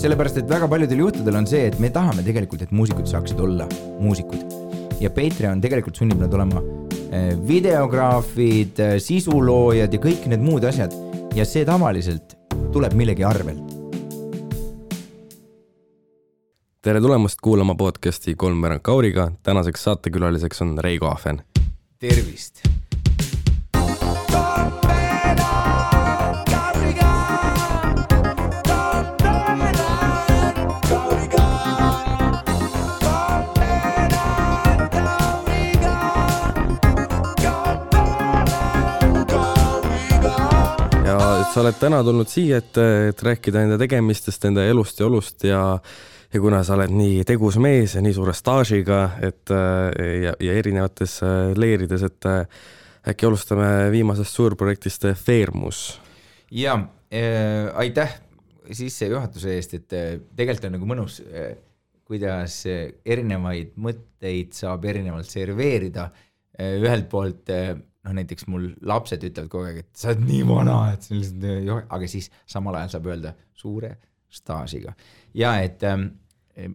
sellepärast, et väga paljudel juhtudel on see, et me tahame tegelikult, et muusikud saaksid olla muusikud. Ja Patreon tegelikult sunnib nad olema videograafid, sisuloojad ja kõik need muud asjad. Ja see tavaliselt tuleb millegi arvelt. Tere tulemast kuulama podcasti Kolmveerand Kauriga. Tänaseks saatekülaliseks on Reigo Ahven. Tervist! Sa oled täna tulnud siia, et rääkida enda tegemistest, enda elust ja olust ja kuna sa oled nii tegus mees ja nii suure staažiga ja erinevates leerides, et äkki alustame viimasest suurprojektist Feermus. Ja, aitäh sisse juhatuse eest, et tegelikult on nagu mõnus, kuidas erinevaid mõtteid saab erinevalt serveerida. Ühelt poolt näiteks mul lapsed ütlevad kogu aeg, et sa oled nii vana, et aga siis samal ajal saab öelda suure staažiga. Ja et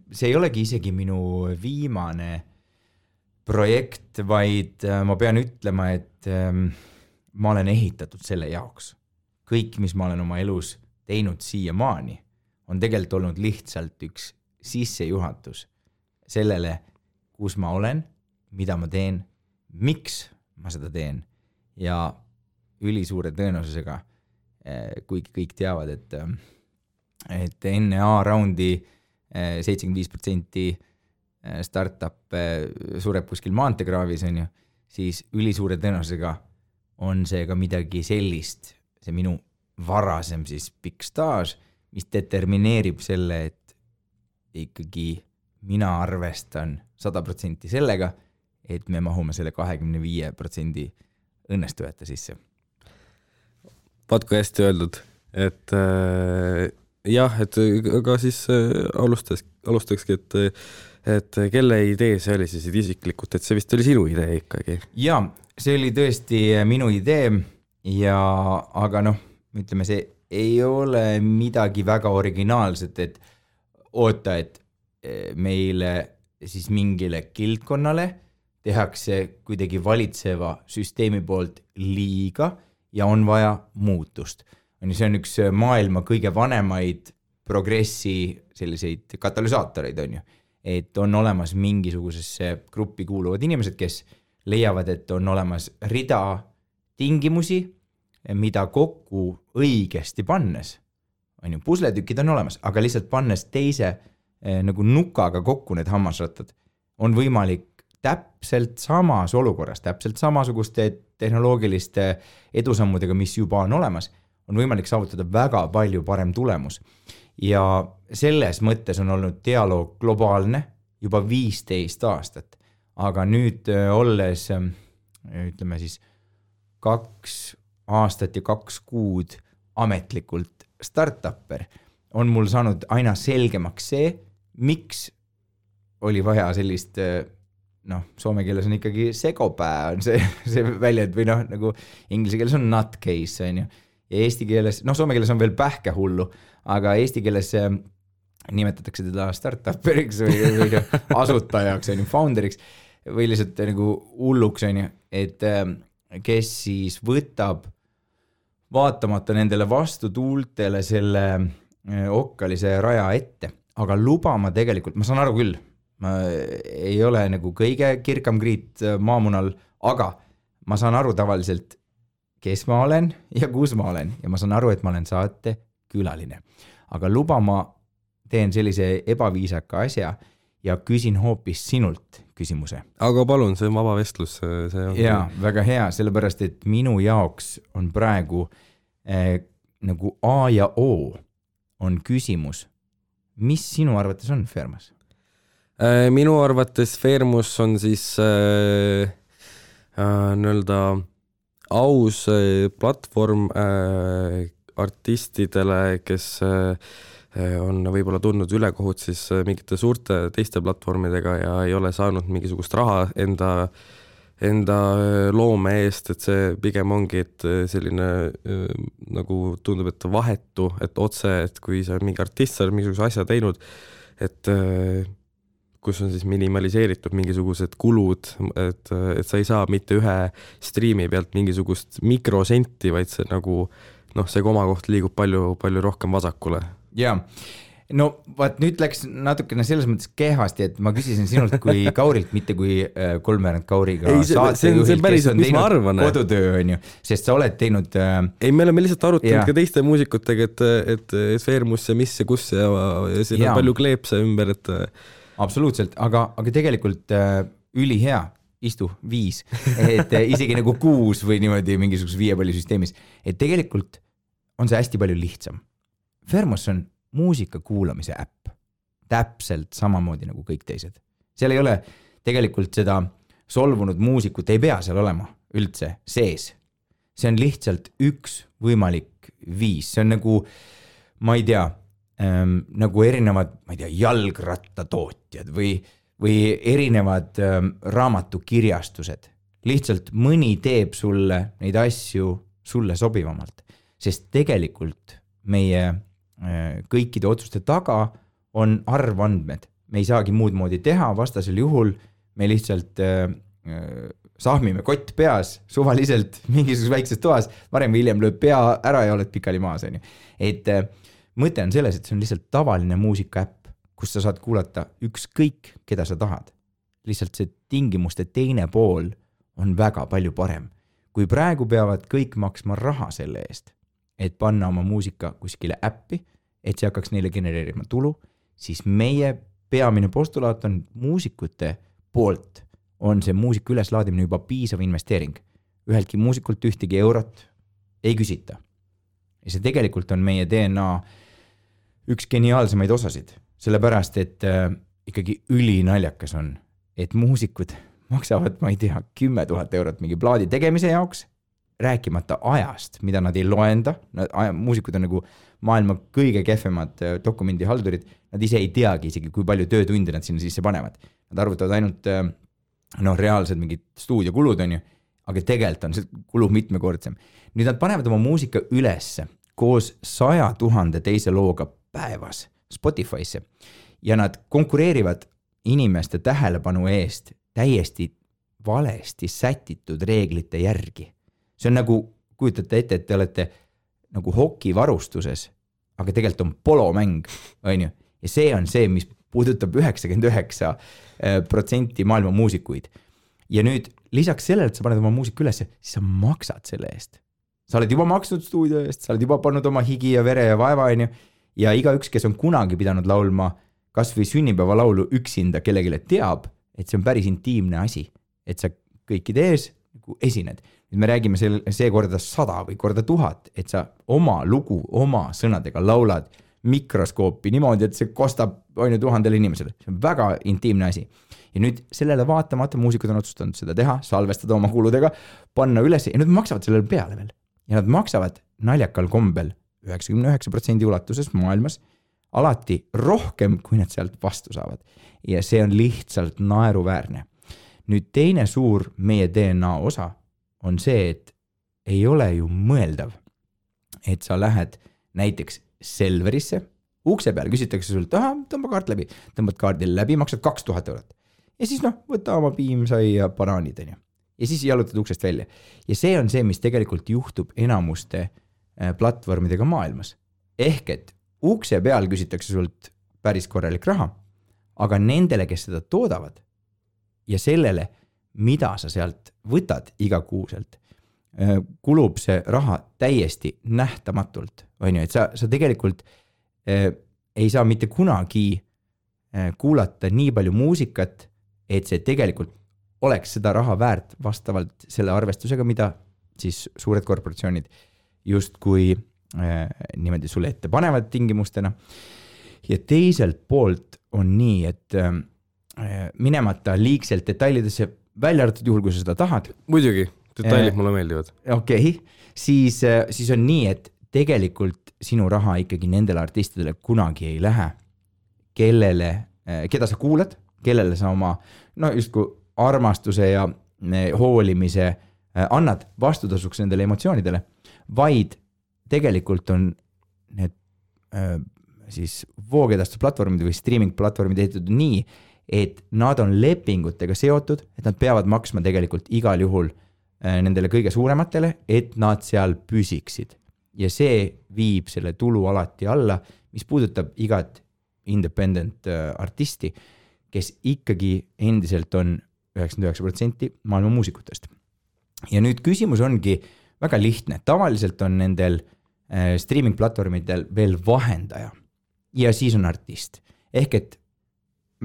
see ei olegi isegi minu viimane projekt, vaid ma pean ütlema, et ma olen ehitatud selle jaoks. Kõik, mis ma olen oma elus teinud siiamaani, on tegelikult olnud lihtsalt üks sissejuhatus sellele, kus ma olen, mida ma teen, miks ma seda teen ja ülisuure tõenäosusega, kuigi kõik teavad, et enne A-raundi 75% startup sureb kuskil maanteekraavis, on ju, siis ülisuure tõenäosusega on see ka midagi sellist, see minu varasem siis pikk staaž, mis determineerib selle, et ikkagi mina arvestan 100% sellega, et me mahume selle 25% õnnestujate sisse. Vaat kui hästi öeldud, et jah, et aga siis alustakski, et kelle idee see oli siis isiklikult, et see vist oli sinu idee ikkagi? Ja, see oli tõesti minu idee, aga ütleme, see ei ole midagi väga originaalset, et oota, et meile siis mingile kildkonnale tehakse kuidagi valitseva süsteemi poolt liiga ja on vaja muutust. See on üks maailma kõige vanemaid progressi selliseid katalüsaatoreid, on ju. Et on olemas mingisugusesse gruppi kuuluvad inimesed, kes leiavad, et on olemas rida tingimusi, mida kokku õigesti pannes. On ju, pusletükid on olemas, aga lihtsalt pannes teise nagu nukaga kokku need hammasrattad on võimalik täpselt samas olukorras, täpselt samasuguste tehnoloogiliste edusammudega, mis juba on olemas, on võimalik saavutada väga palju parem tulemus. Ja selles mõttes on olnud dialoog globaalne juba 15 aastat, aga nüüd olles, ütleme siis, 2 aastat ja 2 kuud ametlikult startupper, on mul saanud aina selgemaks see, miks oli vaja sellist soome keeles on ikkagi segopää on see väljend või nagu inglise keeles on nutcase, on ju. Ja eesti keeles, soome keeles on veel pähkehullu, aga eesti keeles nimetatakse teda startupperiks või asutajaks, on ju, founderiks või lihtsalt nagu hulluks, on ju, et kes siis võtab vaatamata nendele vastutuultele selle okkalise raja ette, aga lubama tegelikult, ma saan aru küll, ma ei ole nagu kõige kirkam kriit maamunal, aga ma saan aru tavaliselt, kes ma olen ja kus ma olen ja ma saan aru, et ma olen saate külaline. Aga lubama teen sellise ebaviisaka asja ja küsin hoopis sinult küsimuse. Aga palun, see on vaba vestlus. Ja, väga hea, sellepärast, et minu jaoks on praegu nagu A ja O on küsimus. Mis sinu arvates on Feermus? Minu arvates Feermus on siis nõelda aus platvorm artistidele, kes on võib-olla tundnud ülekohut siis mingite suurte teiste platvormidega ja ei ole saanud mingisugust raha enda enda loome eest, et see pigem ongi, et selline nagu tundub, et vahetu, et otse, et kui sa mingi artist, sa oled mingisuguse asja teinud, et kus on siis minimaliseeritud mingisugused kulud, et sa ei saa mitte ühe striimi pealt mingisugust mikrosenti, vaid see nagu, see komakoht liigub palju, palju rohkem vasakule. Jaa. No vaat nüüd läks natukene selles mõttes kehvasti, et ma küsisin sinult kui Kaurilt, mitte kui Kolmveerand Kauriga saatejuhilt, kes on teinud kodutöö, on ju, sest sa oled teinud... Ei, me oleme lihtsalt arutanud ka teiste muusikutega, et Feermus ja mis ja kus ja siin on palju kleepse ümber, et... Absoluutselt, aga tegelikult ülihea, istu 5, et isegi nagu 6 või niimoodi mingisuguses 5 palli süsteemis, et tegelikult on see hästi palju lihtsam. Feermus on muusika kuulamise äpp, täpselt samamoodi nagu kõik teised. Seal ei ole tegelikult seda solvunud muusikut, ei pea seal olema üldse sees. See on lihtsalt üks võimalik viis, see on nagu, ma ei tea, nagu erinevad, ma ei tea, jalgrattatootjad või erinevad raamatukirjastused. Lihtsalt mõni teeb sulle neid asju sulle sobivamalt, sest tegelikult meie kõikide otsuste taga on arvandmed. Me ei saagi muud moodi teha, vastasel juhul me lihtsalt sahmime kott peas suvaliselt mingisuguses väikses toas, varem või hiljem lööb pea ära ja oled pikali maas. Et mõte on selles, et see on lihtsalt tavaline muusikaäpp, kus sa saad kuulata ükskõik, keda sa tahad. Lihtsalt see tingimuste teine pool on väga palju parem. Kui praegu peavad kõik maksma raha selle eest, et panna oma muusika kuskile äppi, et see hakkaks neile genereerima tulu, siis meie peamine postulaat on muusikute poolt on see muusika üleslaadimine juba piisav investeering. Üheltki muusikult ühtegi eurot ei küsita. Ja see tegelikult on meie DNA üks geniaalsemaid osasid, sellepärast, et ikkagi ülinaljakas on, et muusikud maksavad, ma ei tea, 10 000 eurot mingi plaadi tegemise jaoks, rääkimata ajast, mida nad ei loenda. Muusikud on nagu maailma kõige kehvemad dokumendihaldurid. Nad ise ei teagi isegi, kui palju töötunde nad sinna sisse panevad. Nad arvutavad ainult reaalsed mingid stuudiokulud on ju, aga tegelikult on see kulu mitmekordsem. Nüüd nad panevad oma muusika ülesse koos 100 000 teise looga päevas Spotify'sse ja nad konkureerivad inimeste tähelepanu eest täiesti valesti sätitud reeglite järgi. See on nagu, kujutate ette, et te olete nagu hokivarustuses, aga tegelikult on polomäng, on ju. Ja see on see, mis puudutab 99% maailma muusikuid. Ja nüüd lisaks sellele, et sa paned oma muusika üles, siis sa maksad selle eest. Sa oled juba maksnud stuudio eest, sa oled juba pannud oma higi ja vere ja vaeva, on ju. Ja igaüks, kes on kunagi pidanud laulma kas või sünnipäeva laulu üksinda kellegile teab, et see on päris intiimne asi, et sa kõikide ees esined. Nüüd me räägime see korda 100 või korda 1000, et sa oma lugu, oma sõnadega laulad mikroskoopi niimoodi, et see kostab 1000 inimesele. See on väga intiimne asi. Ja nüüd sellele vaatamata muusikud on otsustanud seda teha, salvestada oma kuludega, panna üles ja nüüd maksavad sellele peale veel. Ja nad maksavad naljakal kombel 99% ulatuses maailmas alati rohkem, kui nad sealt vastu saavad. Ja see on lihtsalt naeruväärne. Nüüd teine suur meie DNA osa on see, et ei ole ju mõeldav, et sa lähed näiteks Selverisse, ukse peal küsitakse sult, tõmba kaart läbi, tõmbad kaardil läbi, maksad 2000 eurot. Ja siis võta oma piimsai ja banaanid. Ja siis jalutad uksest välja. Ja see on see, mis tegelikult juhtub enamuste platvormidega maailmas. Ehk et ukse peal küsitakse sult päris korralik raha, aga nendele, kes seda toodavad ja sellele, mida sa sealt võtad igakuuselt, kulub see raha täiesti nähtamatult. On ju, et sa tegelikult ei saa mitte kunagi kuulata nii palju muusikat, et see tegelikult oleks seda raha väärt vastavalt selle arvestusega, mida siis suured korporatsioonid justkui niimoodi sulle ette panevad tingimustena. Ja teiselt poolt on nii, et minemata liigselt detailidesse välja arvatud juhul, kui sa seda tahad. Muidugi, detailid mulle meeldivad. Okei, siis on nii, et tegelikult sinu raha ikkagi nendele artistidele kunagi ei lähe, keda sa kuulad, kellele sa oma, just kui armastuse ja hoolimise annad vastutasuks nendele emotsioonidele, vaid tegelikult on need siis voogedastusplatvormid või streaming platvormid ehitatud nii, et nad on lepingutega seotud, et nad peavad maksma tegelikult igal juhul nendele kõige suurematele, et nad seal püsiksid. Ja see viib selle tulu alati alla, mis puudutab igat independent artisti, kes ikkagi endiselt on 99% maailma muusikutest. Ja nüüd küsimus ongi väga lihtne. Tavaliselt on nendel streaming platvormidel veel vahendaja ja siis on artist. Ehk et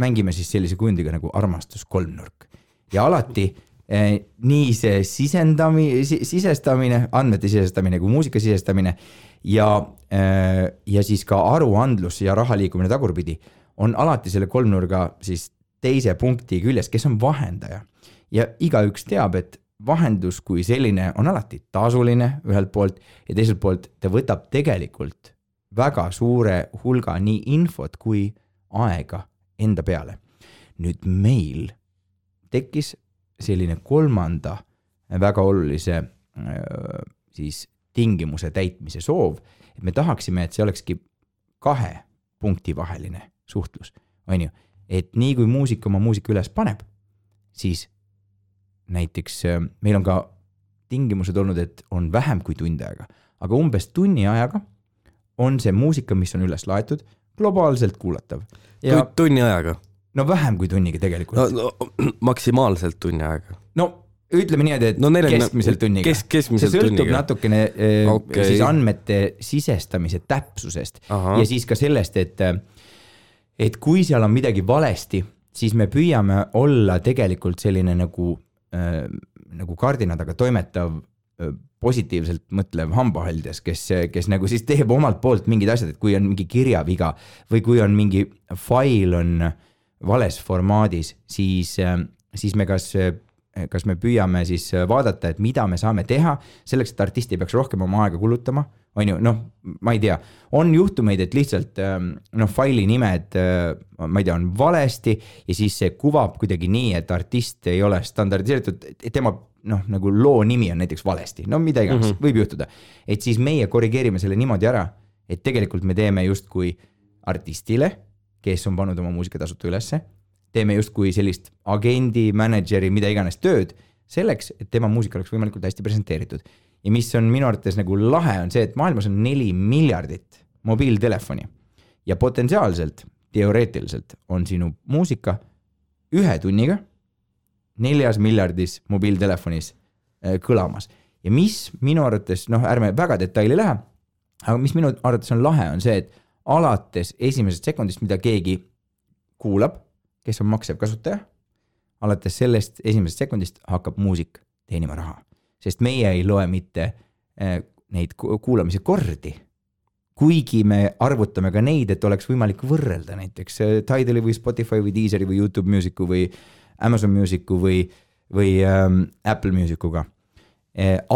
mängime siis sellise kujundiga nagu armastus kolmnurk. Ja alati nii see sisestamine, andmete sisestamine kui muusika sisestamine ja siis ka aruandlus ja raha liikumine tagurpidi on alati selle kolmnurga siis teise punkti küljes, kes on vahendaja. Ja igaüks teab, et vahendus kui selline on alati tasuline ühelt poolt ja teiselt poolt ta võtab tegelikult väga suure hulga nii infot kui aega enda peale. Nüüd meil tekkis selline kolmanda väga olulise siis tingimuse täitmise soov, et me tahaksime, et see olekski 2 punkti vaheline suhtlus. On ju? Et nii kui muusik oma muusika üles paneb, siis näiteks meil on ka tingimused olnud, et on vähem kui tund aega, aga umbes tunni ajaga on see muusika, mis on üles laetud, globaalselt kuulatav. Ja tunni ajaga? No vähem kui tunniga tegelikult. No, maksimaalselt tunni aega? No ütleme nii, et keskmiselt tunniga. Keskmiselt see sõltub tunniga. Natukene siis andmete sisestamise täpsusest. Aha. Ja siis ka sellest, et kui seal on midagi valesti, siis me püüame olla tegelikult selline nagu kardinadaga toimetav positiivselt mõtlev hambahaldes, kes nagu siis teeb omalt poolt mingid asjad, et kui on mingi kirjaviga või kui on mingi fail on vales formaadis, siis me kas me püüame siis vaadata, et mida me saame teha selleks, et artisti peaks rohkem oma aega kulutama, on ju, ma ei tea, on juhtumeid, et lihtsalt faili nimed, ma ei tea, on valesti ja siis see kuvab kuidagi nii, et artist ei ole standardiseeritud, et tema nagu loo nimi on näiteks valesti, mida iganes, võib juhtuda. Et siis meie korrigeerime selle niimoodi ära, et tegelikult me teeme justkui artistile, kes on pannud oma muusika tasuta ülesse, teeme justkui sellist agendi, manageri, mida iganes tööd selleks, et tema muusika oleks võimalikult hästi presenteeritud. Ja mis on minu arvates nagu lahe on see, et maailmas on 4 miljardit mobiiltelefoni ja potentsiaalselt, teoreetiliselt on sinu muusika 1 tunniga 4 miljardis mobiiltelefonis kõlamas. Ja mis minu arvates, ärme väga detaili lähe, aga mis minu arvates on lahe, on see, et alates esimesest sekundist, mida keegi kuulab, kes on maksev kasutaja, alates sellest esimesest sekundist hakkab muusik teenima raha. Sest meie ei loe mitte neid kuulamise kordi, kuigi me arvutame ka neid, et oleks võimalik võrrelda näiteks Tidali või Spotify või Deezeri või YouTube Musicu või Amazon Musicu või Apple Musicuga.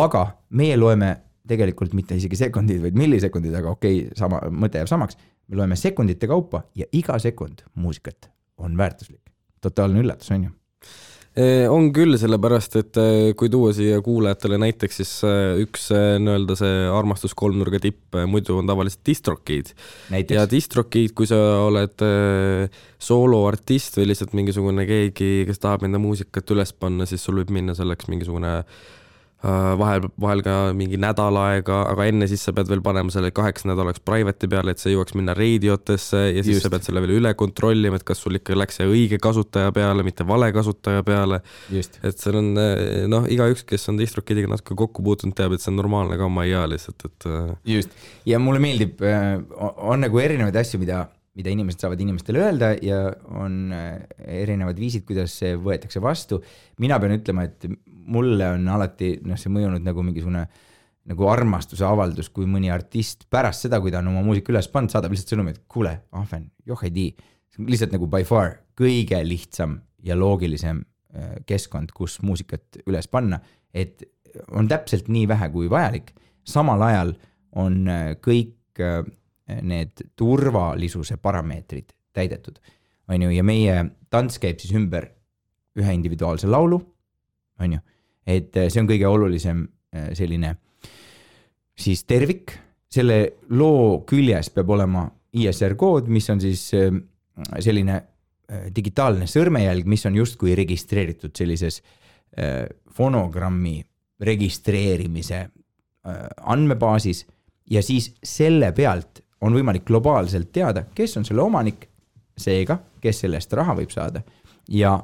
Aga meie loeme tegelikult mitte isegi sekundid, vaid millisekundid, aga sama mõte jääb samaks. Me loeme sekundite kaupa ja iga sekund muusikat on väärtuslik. Totaalne üllatus, on ju? On küll, sellepärast, et kui tuua siia kuulajatele näiteks, siis üks nii-öelda see armastus kolmnurga tipp muidu on tavaliselt DistroKid. Ja DistroKid, kui sa oled sooloartist või lihtsalt mingisugune keegi, kes tahab enda muusikat üles panna, siis sul võib minna selleks mingisugune vahel ka mingi nädal aega, aga enne siis sa pead veel panema selle 8 nädalaks private'i peale, et see jõuaks minna reediotesse ja siis sa pead selle veel üle kontrollima, et kas sul ikka läks see õige kasutaja peale, mitte vale kasutaja peale. Just. Et see on, igaüks, kes on DistroKidiga natuke kokku puutunud, teab, et see on normaalne ka oma ealised. Just. Ja mulle meeldib, on nagu erinevaid asju, mida inimesed saavad inimestele öelda ja on erinevad viisid, kuidas see võetakse vastu. Mina pean ütlema, et mulle on alati see mõjunud nagu mingisugune nagu armastuse avaldus, kui mõni artist pärast seda, kui ta on oma muusika üles pannud, saadab lihtsalt sõnumi, et kuule, ahven, ei tii. Lihtsalt nagu by far kõige lihtsam ja loogilisem keskkond, kus muusikat üles panna, et on täpselt nii vähe kui vajalik. Samal ajal on kõik need turvalisuse parameetrid täidetud. Ja meie tants käib siis ümber ühe individuaalse laulu, on ju. Et see on kõige olulisem selline siis tervik, selle loo küljes peab olema ISR kood, mis on siis selline digitaalne sõrmejälg, mis on justkui registreeritud sellises fonogrammi registreerimise andmebaasis ja siis selle pealt on võimalik globaalselt teada, kes on selle omanik, seega, kes sellest raha võib saada ja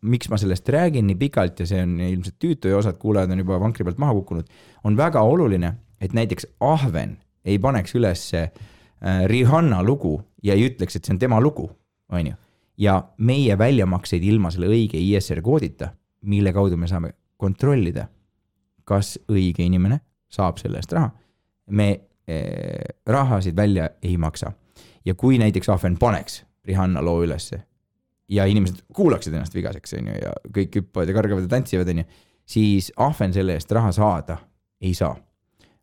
miks ma sellest räägin nii pikalt ja see on ilmselt tüütu ja osad kuulajad on juba vankri pealt maha kukkunud, on väga oluline, et näiteks Ahven ei paneks üles Rihanna lugu ja ei ütleks, et see on tema lugu, on ju. Ja meie väljamakseid ilma selle õige ISR koodita, mille kaudu me saame kontrollida, kas õige inimene saab selle eest raha. Me rahasid välja ei maksa. Ja kui näiteks Ahven paneks Rihanna loo ülesse ja inimesed kuulaksid ennast vigaseks on ju, ja kõik hüppavad ja kargavad ja tantsivad on ju, siis Ahven selle eest raha saada ei saa.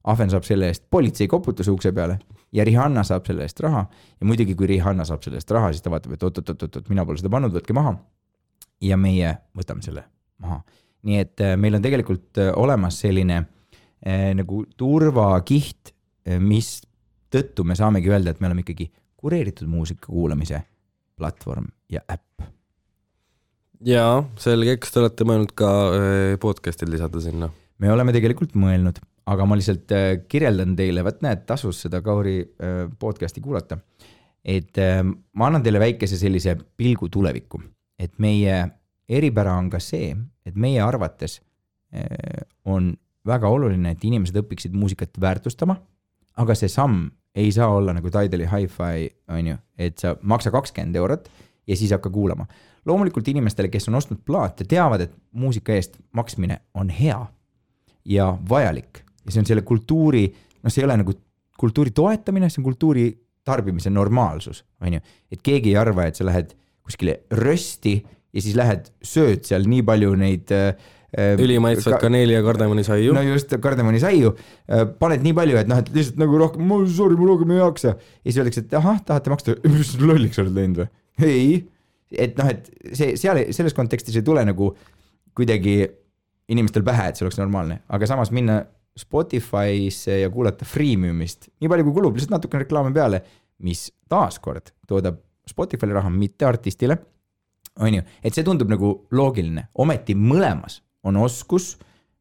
Ahven saab selle eest politsei koputuse ukse peale ja Rihanna saab selle eest raha ja muidugi kui Rihanna saab selle eest raha, siis ta vaatab, et oot, mina pole seda pannud, võtke maha ja meie võtame selle maha. Nii et meil on tegelikult olemas selline nagu turvakiht, mis tõttu me saamegi öelda, et me oleme ikkagi kureeritud muusika kuulamise platvorm ja äpp. Jaa, selge, kas te olete mõelnud ka podcast'id lisada sinna? Me oleme tegelikult mõelnud, aga ma lihtsalt kirjeldan teile, võt näed, tasus seda Kauri podcasti kuulata, et ma annan teile väikese sellise pilgu tulevikku, et meie eripära on ka see, et meie arvates on väga oluline, et inimesed õpiksid muusikat väärtustama, aga see samm ei saa olla nagu Tidali Hi-Fi, on ju, et sa maksa 20 eurot ja siis hakka kuulama. Loomulikult inimestele, kes on ostnud plaate, teavad, et muusika eest maksmine on hea ja vajalik. Ja see on selle kultuuri, see ei ole nagu kultuuri toetamine, see on kultuuri tarbimise normaalsus, on ju. Et keegi ei arva, et sa lähed kuskile rösti ja siis lähed sööd seal nii palju neid ülimaitsvad kaneeli ja kardemonisaiu. No just, kardemonisaiu. Paned nii palju, et et lihtsalt nagu rohkem, ma rohkem ei jaksa. Ja siis öeldakse, et tahate maksta, mis lolliks oled läinud või? Ei. Et et selles kontekstis ei tule nagu kuidagi inimestel pähe, et see oleks normaalne. Aga samas minna Spotify'sse ja kuulata freemiumist, nii palju kui kulub, lihtsalt natuke reklaame peale, mis taaskord toodab Spotify'le raha, mitte artistile, on ju. Et see tundub nagu loogiline. Ometi mõlemas on oskus,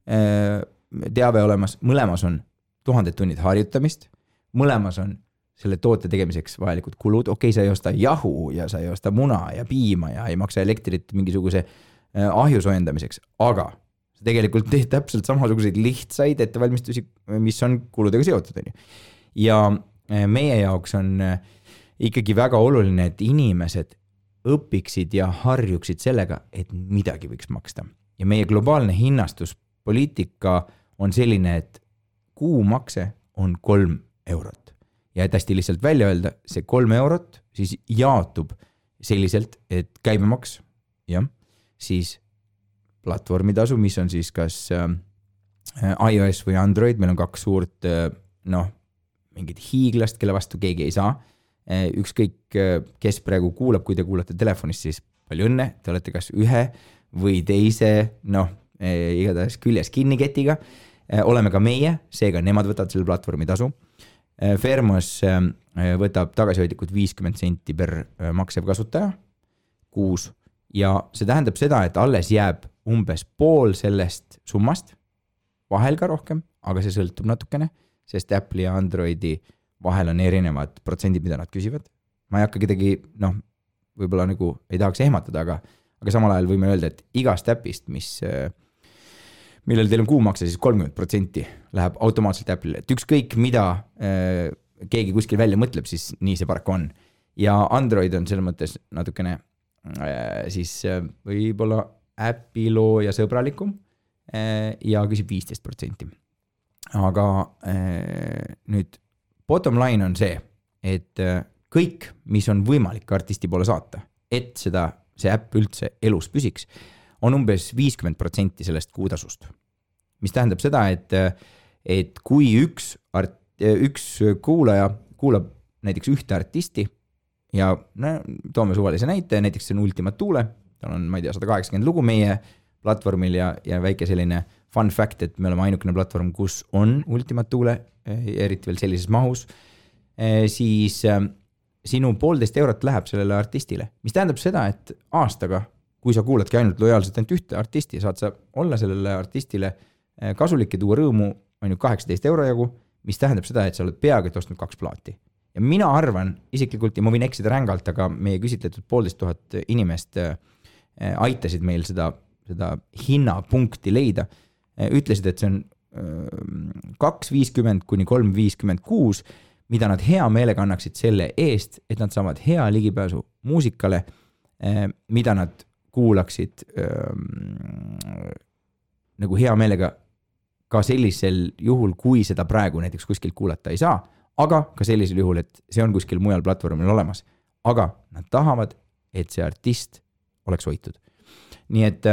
teave olemas, mõlemas on 1000 tunnid harjutamist, mõlemas on selle toote tegemiseks vajalikud kulud, okei, sa ei osta jahu ja sa ei osta muna ja piima ja ei maksa elektrit mingisuguse ahju soojendamiseks, aga sa tegelikult teed täpselt samasuguseid lihtsaid ettevalmistusi, mis on kuludega seotud. Ja meie jaoks on ikkagi väga oluline, et inimesed õpiksid ja harjuksid sellega, et midagi võiks maksta. Ja meie globaalne hinnastuspoliitika on selline, et kuumakse on 3 eurot. Ja et hästi lihtsalt välja öelda, see 3 eurot siis jaotub selliselt, et käibemaks, jah, siis platvormitasu, mis on siis kas iOS või Android, meil on 2 suurt, mingid hiiglast, kelle vastu keegi ei saa. Ükskõik, kes praegu kuulab, kui te kuulate telefonist, siis palju õnne, te olete kas ühe või teise, igatahes küljes kinniketiga. Oleme ka meie, seega nemad võtavad selle platvormi tasu. Fermos võtab tagasihoidlikult 50 senti per maksev kasutaja kuus ja see tähendab seda, et alles jääb umbes pool sellest summast, vahel ka rohkem, aga see sõltub natukene, sest Apple'i ja Androidi vahel on erinevad protsendid, mida nad küsivad. Ma ei hakka kedagi, võib-olla nagu ei tahaks ehmatada, aga samal ajal võime öelda, et igast äpist, millel teil on kuumakse, siis 30% läheb automaatselt Apple'ile. Et ükskõik mida keegi kuskil välja mõtleb, siis nii see paraku on. Ja Android on selles mõttes natukene siis võib-olla äpiloo ja sõbralikum ja küsib 15%. Aga nüüd bottom line on see, et kõik, mis on võimalik artisti poole saata, et see äpp üldse elus püsiks, on umbes 50% sellest kuutasust. Mis tähendab seda, et kui üks kuulaja kuulab näiteks ühte artisti ja toome suvalise näite, näiteks see on Ultima Thule, tal on, ma ei tea, 180 lugu meie platvormil ja väike selline fun fact, et me oleme ainukene platvorm, kus on Ultimate Thule, eriti veel sellises mahus, siis sinu 1,5 eurot läheb sellele artistile, mis tähendab seda, et aastaga, kui sa kuuladki ainult lojaalselt ainult ühte artisti, saad sa olla sellele artistile kasulik ja tuua rõõmu on ju 18 euro jagu, mis tähendab seda, et sa oled peaaegu et ostnud 2 plaati. Ja mina arvan isiklikult, ja ma võin eksida rängalt, aga meie küsitletud 1500 inimest aitasid meil seda hinnapunkti leida, ütlesid, et see on 2,50 kuni 3,56, mida nad hea meelega annaksid selle eest, et nad saavad hea ligipääsu muusikale, mida nad kuulaksid nagu hea meelega ka sellisel juhul, kui seda praegu näiteks kuskil kuulata ei saa, aga ka sellisel juhul, et see on kuskil mujal platvormil olemas. Aga nad tahavad, et see artist oleks hoitud. Nii et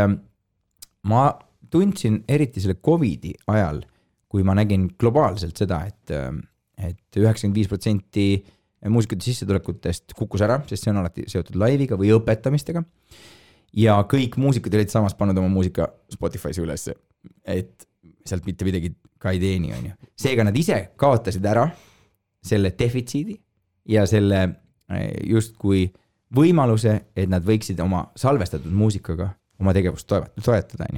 ma tundsin eriti selle COVIDi ajal, kui ma nägin globaalselt seda, et 95% muusikute sissetulekutest kukkus ära, sest see on alati seotud laiviga või õpetamistega. Ja kõik muusikud olid samas pannud oma muusika Spotify'sse ülesse, et sealt mitte midagi ka ei teeni. Seega nad ise kaotasid ära selle defitsiidi ja selle justkui võimaluse, et nad võiksid oma salvestatud muusikaga oma tegevust toetada.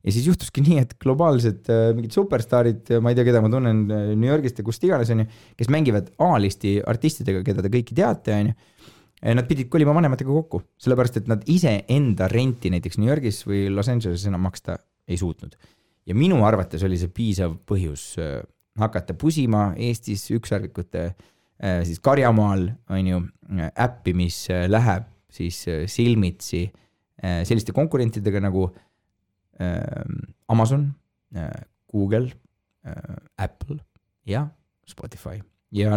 Ja siis juhtuski nii, et globaalsed mingid superstaarid, ma ei tea, keda ma tunnen New Yorgist ja kust iganes, kes mängivad A-listi artistidega, keda te kõiki teate, nad pidid kolima vanematega kokku, sellepärast, et nad ise enda renti näiteks New Yorgis või Los Angeleses enam maksta ei suutnud. Ja minu arvates oli see piisav põhjus hakata pusima Eestis ükssarvikute siis Karjamaal äppi, mis läheb siis silmitsi selliste konkurentidega nagu Amazon, Google, Apple ja Spotify. Ja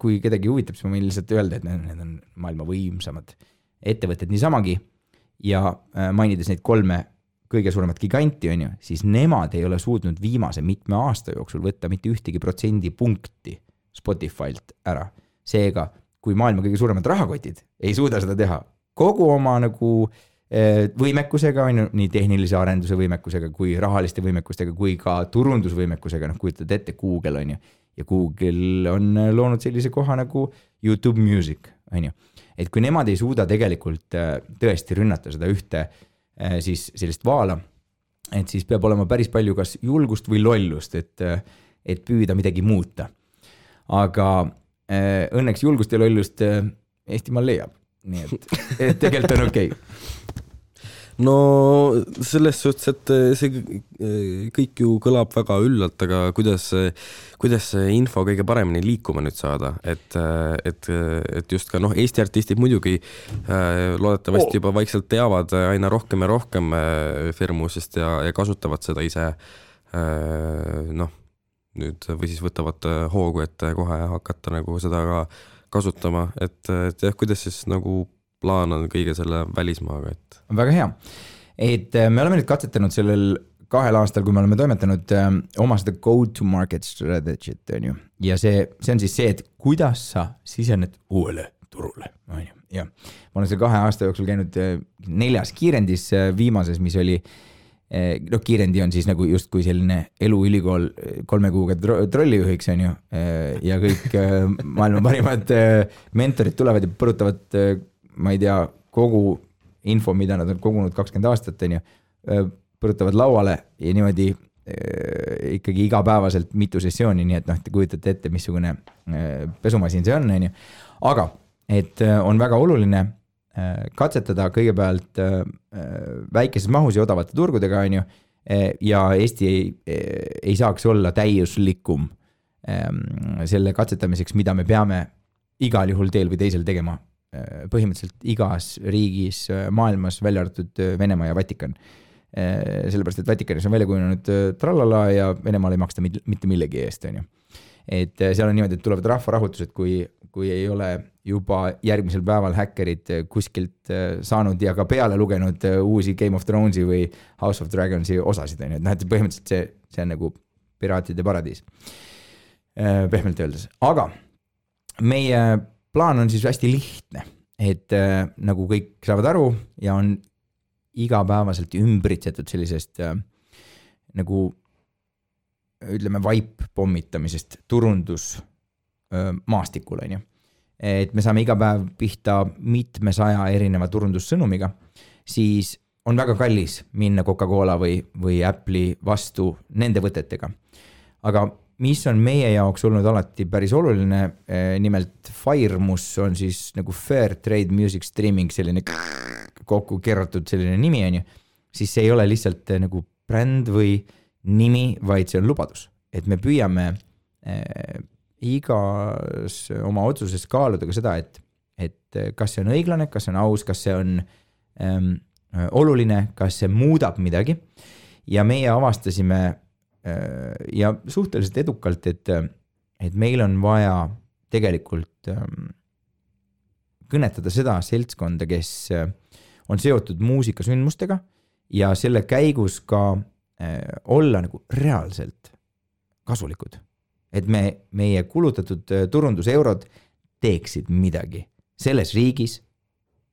kui kedagi huvitab, siis ma võin lihtsalt öelda, et need on maailma võimsamad ettevõtted niisamagi ja mainides neid 3 kõige suuremat giganti, siis nemad ei ole suutnud viimase mitme aasta jooksul võtta mitte ühtegi protsendipunkti Spotify'lt ära. Seega, kui maailma kõige suuremad rahakotid ei suuda seda teha kogu oma nagu võimekusega, nii tehnilise arenduse võimekusega kui rahaliste võimekustega kui ka turundusvõimekusega, kujutad ette Google ja Google on loonud sellise koha nagu YouTube Music. Et kui nemad ei suuda tegelikult tõesti rünnata seda ühte siis sellist vaala, et siis peab olema päris palju kas julgust või lollust, et püüda midagi muuta. Aga õnneks julgust ja lollust Eestimaal leiab. Nii et tegelikult on okei. No selles suhtes, et see kõik ju kõlab väga üllalt, aga kuidas see info kõige paremini liikuma nüüd saada, et just ka Eesti artistid muidugi loodetavasti juba vaikselt teavad aina rohkem ja rohkem firmusest ja kasutavad seda ise nüüd või siis võtavad hoogu, et kohe hakata nagu seda ka kasutama, et kuidas siis nagu plaan on kõige selle välismaaga, et... Väga hea. Et me oleme nüüd katsetanud sellel 2 aastal, kui me oleme toimetanud oma seda go-to-market strategy't, ja see on siis see, et kuidas sa sisened uuele turule. Ja ma olen selle 2 aasta jooksul käinud 4 kiirendis viimases, mis oli kiirendi on siis nagu justkui selline eluülikool 3 kuuga trollijuhiks, ja kõik maailma parimad mentorid tulevad ja põrutavad ma ei tea, kogu info, mida nad on kogunud 20 aastat, põrutavad lauale ja niimoodi ikkagi igapäevaselt mitu sessiooni, nii et te kujutate ette, missugune pesumasin see on. Aga, et on väga oluline katsetada kõigepealt väikeses mahus ja odavate turgudega, ja Eesti ei saaks olla täiuslikum selle katsetamiseks, mida me peame igal juhul teel või teisel tegema põhimõtteliselt igas riigis maailmas, välja arvatud Venemaa ja Vatikan. Sellepärast, et Vatikanis on välja kujunenud trallala ja Venemaal ei maksta mitte millegi eest. Et seal on niimoodi, et tulevad rahvarahutused, kui ei ole juba järgmisel päeval häkkerid kuskilt saanud ja ka peale lugenud uusi Game of Thronesi või House of Dragonsi osasid. Et põhimõtteliselt see on nagu piraatide paradiis. Pehmelt öeldes. Aga meie plaan on siis hästi lihtne, et nagu kõik saavad aru ja on igapäevaselt ümbritsetud sellisest nagu ütleme vaip pommitamisest turundus maastikul, on ju. Et me saame iga päev pihta mitmesaja erineva turundussõnumiga, siis on väga kallis minna Coca-Cola või Apple'i vastu nende võtetega. Aga mis on meie jaoks olnud alati päris oluline, nimelt FIREMUS on siis nagu Fair Trade Music Streaming, selline kokku kerratud selline nimi, on ju, siis see ei ole lihtsalt nagu bränd või nimi, vaid see on lubadus. Et me püüame igas oma otsuses kaaluda ka seda, et kas see on õiglane, kas see on aus, kas see on oluline, kas see muudab midagi. Ja meie avastasime ja suhteliselt edukalt, et meil on vaja tegelikult kõnetada seda seltskonda, kes on seotud muusikasündmustega ja selle käigus ka olla nagu reaalselt kasulikud. Et meie kulutatud turunduseurod teeksid midagi selles riigis,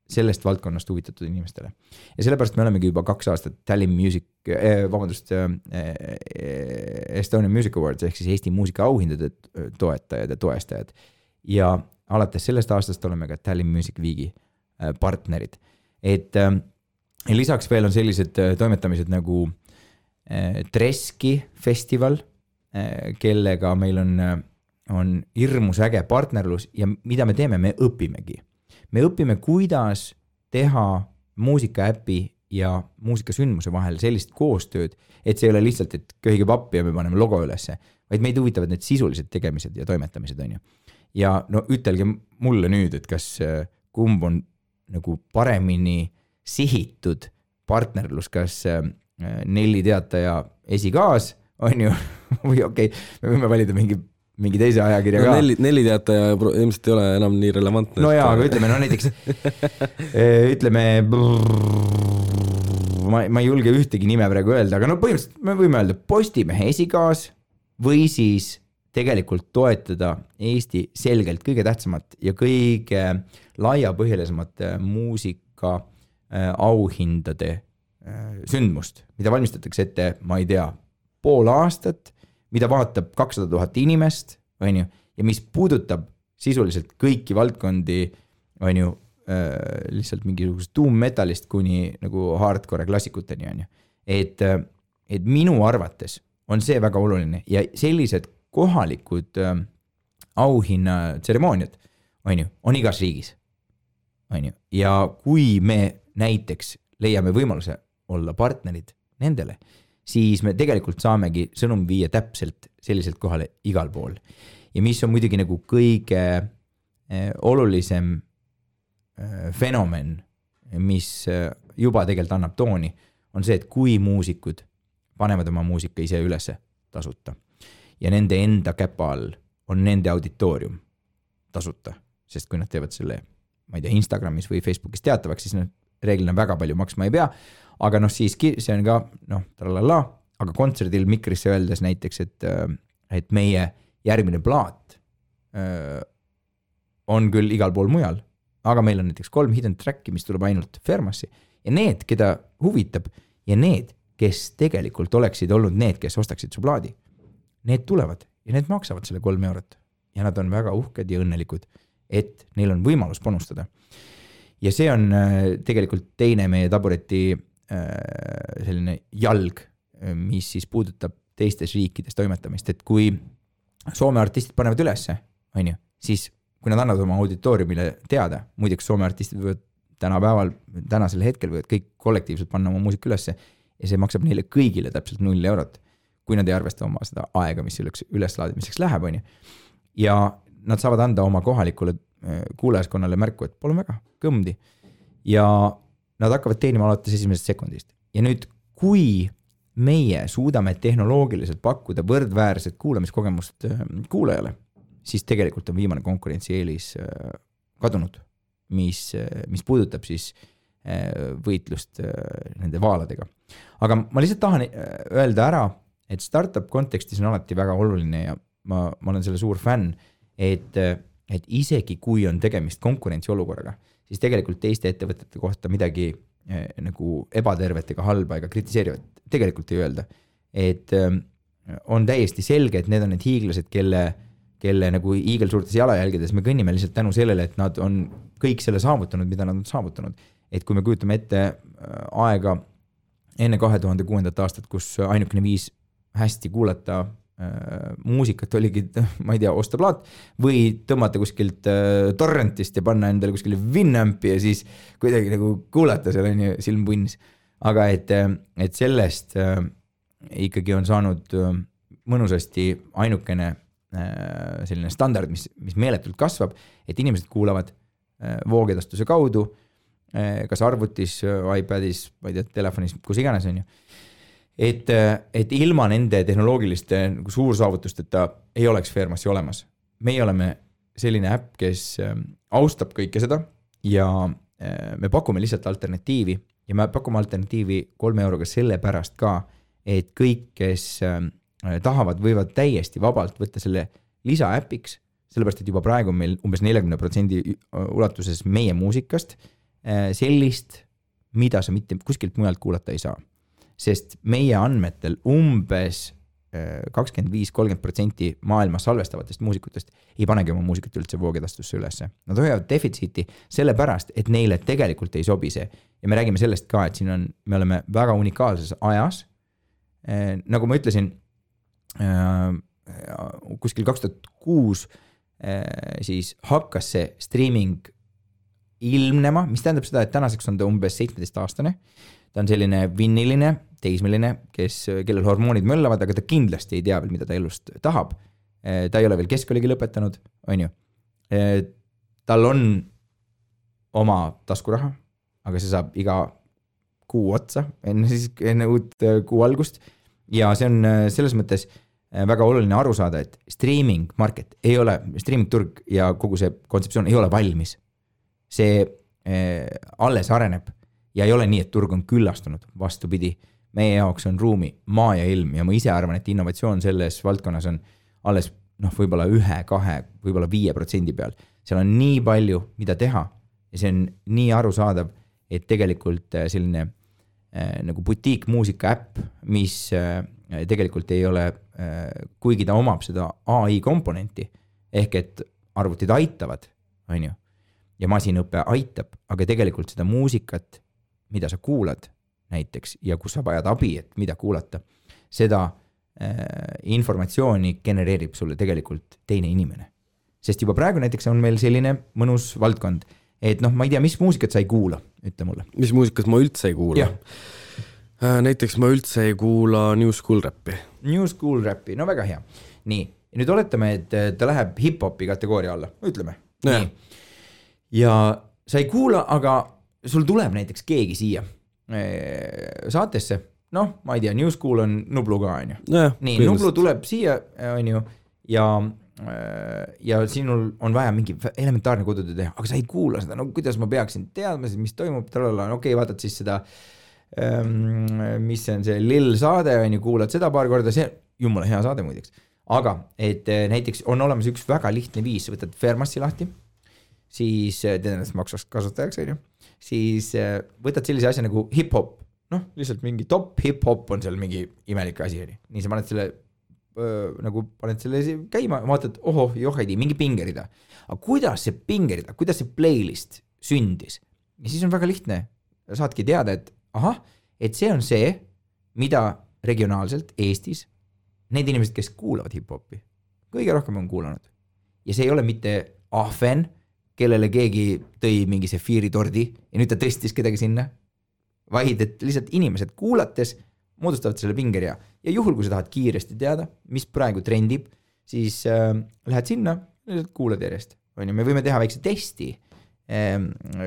sellest valdkonnast huvitatud inimestele. Ja sellepärast me olemegi juba 2 aastat Tallinn Estonian Music Awards ehk siis Eesti muusika auhindade toetajad ja toestajad. Ja alates sellest aastast oleme ka Tallinn Music Weeki partnerid. Et lisaks veel on sellised toimetamised nagu Treski festival, kellega meil on hirmus äge partnerlus ja mida me teeme, me õpimegi. Me õpime, kuidas teha muusikaäpi ja muusikasündmuse vahel sellist koostööd, et see ei ole lihtsalt, et köhige pappi ja me paneme logo ülesse, vaid meid huvitavad need sisulised tegemised ja toimetamised, on ju. Ja no ütelge mulle nüüd, et kas kumb on nagu paremini sihitud partnerlus, kas Nelli Teataja esikaas, on ju, või okei, me võime valida mingi teise ajakirja ka. Nelli Teataja ilmselt ei ole enam nii relevantne. No jaa, aga ütleme, no näiteks ütleme, ma ei julge ühtegi nime praegu öelda, aga no põhimõtteliselt me võime öelda Postimehe esikaas või siis tegelikult toetada Eesti selgelt kõige tähtsamat ja kõige laiapõhjalisemat muusika auhindade sündmust, mida valmistatakse ette, ma ei tea, pool aastat, mida vaatab 200 000 inimest, on ju, ja mis puudutab sisuliselt kõiki valdkondi, on ju, lihtsalt mingisugust tuummetallist kuni nagu hardcore klassikuteni, on ju. Et minu arvates on see väga oluline ja sellised kohalikud auhinnatseremooniad, on ju, on igas riigis, on ju, ja kui me näiteks leiame võimaluse olla partnerid nendele, siis me tegelikult saamegi sõnum viia täpselt selliselt kohale igal pool. Ja mis on muidugi nagu kõige olulisem fenomen, mis juba tegelikult annab tooni, on see, et kui muusikud panevad oma muusika ise ülesse tasuta ja nende enda käpa all on nende auditoorium tasuta, sest kui nad teevad selle, ma ei tea, Instagramis või Facebookis teatavaks, siis nad reeglina väga palju maksma ei pea, aga noh siiski see on ka, tralala, aga kontserdil Mikrisse öeldes näiteks, et meie järgmine plaat on küll igal pool mujal, aga meil on näiteks 3 hidden tracki, mis tuleb ainult Fermasse ja need, keda huvitab ja need, kes tegelikult oleksid olnud need, kes ostaksid su plaadi, need tulevad ja need maksavad selle 3 eurot ja nad on väga uhked ja õnnelikud, et neil on võimalus panustada. Ja see on tegelikult teine meie tabureti selline jalg, mis siis puudutab teistes riikides toimetamist, et kui Soome artistid panevad ülesse, on ju, siis kui nad annavad oma auditooriumile teada, muideks Soome artistid võivad tänasel hetkel võivad kõik kollektiivselt panna oma muusika ülesse ja see maksab neile kõigile täpselt 0 eurot, kui nad ei arvesta oma seda aega, mis üleslaadimiseks läheb, on ju. Ja nad saavad anda oma kohalikule kuulajaskonnale märku, et pole väga kõmdi ja nad hakkavad teenima alates esimesest sekundist. Ja nüüd, kui meie suudame tehnoloogiliselt pakkuda võrdväärset kuulamiskogemust kuulajale, siis tegelikult on viimane konkurentsieelis kadunud, mis puudutab siis võitlust nende vaaladega. Aga ma lihtsalt tahan öelda ära, et startup kontekstis on alati väga oluline ja ma olen selle suur fänn, et isegi kui on tegemist konkurentsiolukorraga, siis tegelikult teiste ettevõtete kohta midagi nagu ebatervet ega halba ega kritiseerivat tegelikult ei öelda. Et on täiesti selge, et need on need hiiglased, kelle nagu hiigelsuurtes jalajälgedes me kõnnime lihtsalt tänu sellele, et nad on kõik selle saavutanud, mida nad on saavutanud. Et kui me kujutame ette aega enne 2006. aastat, kus ainukene viis hästi kuulata muusikat oligi, ma ei tea, osta plaat või tõmmata kuskilt torrentist ja panna endale kuskile Winampi ja siis kuidagi nagu kuulata seal on ju silm punnis. Aga et sellest ikkagi on saanud mõnusasti ainukene selline standard, mis meeletult kasvab, et inimesed kuulavad voogedastuse kaudu, kas arvutis, iPadis, ma ei tea, telefonis, kus iganes on ju. Et ilma nende tehnoloogiliste nagu suursaavutusteta ei oleks Fairmassi olemas. Meie oleme selline äpp, kes austab kõike seda ja me pakume lihtsalt alternatiivi ja me pakume alternatiivi 3 euroga selle pärast ka, et kõik, kes tahavad, võivad täiesti vabalt võtta selle lisaäpiks, sellepärast, et juba praegu on meil umbes 40% ulatuses meie muusikast sellist, mida sa mitte kuskilt mujalt kuulata ei saa. Sest meie andmetel umbes 25-30% maailmas salvestavatest muusikutest ei panegi oma muusikat üldse voogedastusse ülesse. Nad hoiavad defitsiiti sellepärast, et neile tegelikult ei sobi see. Ja me räägime sellest ka, et siin me oleme väga unikaalses ajas. Nagu ma ütlesin, kuskil 2006 siis hakkas see streaming ilmnema, mis tähendab seda, et tänaseks on ta umbes 17-aastane. Ta on selline vinniline, teismeline, kellel hormoonid möllavad, aga ta kindlasti ei tea veel, mida ta elust tahab. Ta ei ole veel keskkooligi lõpetanud, on ju. Tal on oma taskuraha, aga see saab iga kuu otsa, enne uut kuu algust. Ja see on selles mõttes väga oluline aru saada, et streaming market ei ole, streaming turg ja kogu see kontseptsioon ei ole valmis. See alles areneb ja ei ole nii, et turg on küllastunud, vastupidi. Meie jaoks on ruumi maa ja ilm ja ma ise arvan, et innovatsioon selles valdkonnas on alles võib-olla 1-2, võib-olla 5% peal. Seal on nii palju, mida teha ja see on nii arusaadav, et tegelikult selline nagu butiik muusika äpp, mis tegelikult ei ole, kuigi ta omab seda AI komponenti, ehk et arvutid aitavad, on ju, ja masinõppe aitab, aga tegelikult seda muusikat, mida sa kuulad näiteks ja kus sa vajad abi, et mida kuulata, seda informatsiooni genereerib sulle tegelikult teine inimene. Sest juba praegu näiteks on meil selline mõnus valdkond, et ma ei tea, mis muusikat sa ei kuula, ütle mulle. Mis muusikat ma üldse ei kuula? Näiteks ma üldse ei kuula New School Rappi. New School Rappi, no väga hea. Nii, ja nüüd oletame, et ta läheb hip-hopi kategooria alla, ütleme. Nii. Ja sa ei kuula, aga sul tuleb näiteks keegi siia saatesse, ma ei tea, New School on Nublu ka, on ju. Nii, Nublu tuleb siia, on ju, ja sinul on vaja mingi elementaarne kodutöö teha, aga sa ei kuula seda, kuidas ma peaksin teadma, mis toimub, okei, vaatad siis seda, mis on see Lil saade, on ju, kuulad seda paar korda, see jumala hea saade muideks. Aga, et näiteks on olemas üks väga lihtne viis, võtad Fairmassi lahti, siis teed ennast maksvaks kasutajaks, on ju, siis võtad sellise asja nagu hip-hop, lihtsalt mingi top hip-hop on seal mingi imelik asi, on ju. Nii sa paned selle paned selle käima, vaatad, joheidi, mingi pingerida. Aga kuidas see pingerida, kuidas see playlist sündis? Ja siis on väga lihtne, saadki teada, et et see on see, mida regionaalselt Eestis need inimesed, kes kuulavad hip-hopi, kõige rohkem on kuulanud. Ja see ei ole mitte ahven, kellele keegi tõi mingi sefiiri tordi ja nüüd ta tõstis kedagi sinna, vaid et lihtsalt inimesed kuulates moodustavad selle pingeria. Ja juhul, kui sa tahad kiiresti teada, mis praegu trendib, siis lähed sinna, lihtsalt kuulad järjest. Me võime teha väikse testi.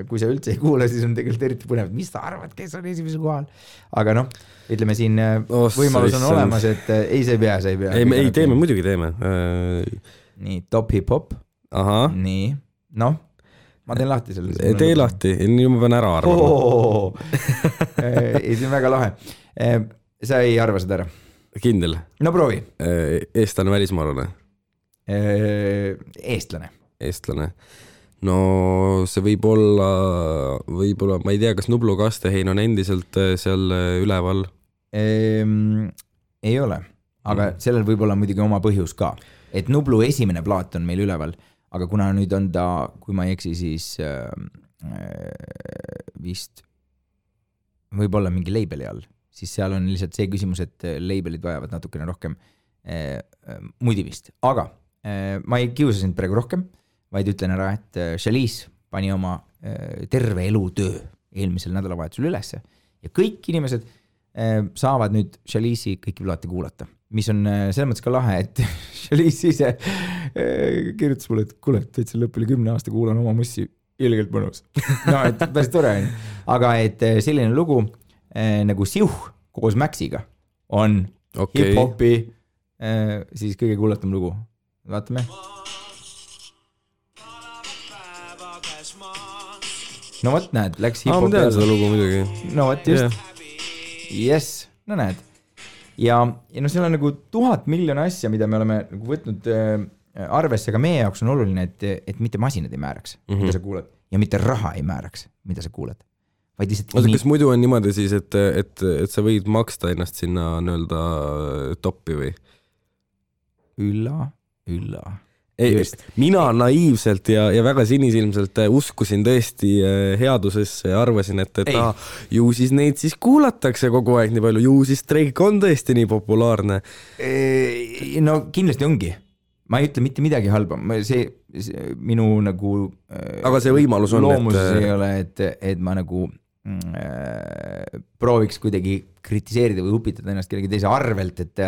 Kui sa üldse ei kuula, siis on tegelikult eriti põnev, mis sa arvad, kes on esimesel kohal. Aga ütleme siin võimalus on olemas, et ei, sa ei pea. Ei, teeme, muidugi teeme. Nii, top hip-hop. Nii, ma teen lahti selle. Tee lahti, nii ma pean ära arvama. Ei, see on väga lahe. Sa ei arva seda ära? Kindel. No proovi. Eestlane, välismaalane? Eestlane. no see võib olla, ma ei tea, kas Nublu kastehein on endiselt seal üleval? Ei ole, aga sellel võib olla muidugi oma põhjus ka, et Nublu esimene plaat on meil üleval, aga kuna nüüd on ta, kui ma ei eksi, siis vist võib-olla mingi labeli all, siis seal on lihtsalt see küsimus, et labelid vajavad natukene rohkem mudivist, aga ma ei kiusa sind praegu rohkem, vaid ütlen ära, et Chalice pani oma terve elutöö eelmisel nädalavahetusel ülesse ja kõik inimesed saavad nüüd Chalice'i kõiki plaate kuulata, mis on selles mõttes ka lahe, et Chalice ise kirjutas mulle, et kuule, täitsa lõpp üle 10 aasta kuulan oma mussi ilgelt mõnus. No, et päris tore on. Aga et selline lugu nagu Siuh koos Maxiga on hip-hopi siis kõige kuulatum lugu. Vaatame. No võt näed, läks hip-hopi. Ma tean seda lugu muidugi. No võt just. Yeah. Yes, no näed. Ja no seal on nagu 1000 miljoni asja, mida me oleme nagu võtnud arvesse, aga meie jaoks on oluline, et mitte masinad ei määraks, mida sa kuulad, ja mitte raha ei määraks, mida sa kuulad. Vaid lihtsalt kas muidu on niimoodi siis, et sa võid maksta ennast sinna nõelda toppi või? Ülla. Mina naiivselt ja väga sinisilmselt uskusin tõesti headusesse ja arvasin, et ju siis neid siis kuulatakse kogu aeg nii palju, ju siis Drake on tõesti nii populaarne. No kindlasti ongi. Ma ei ütle mitte midagi halba. See minu nagu aga see võimalus on, loomuses ei ole, et ma nagu prooviks kuidagi kritiseerida või upitada ennast kellegi teise arvelt, et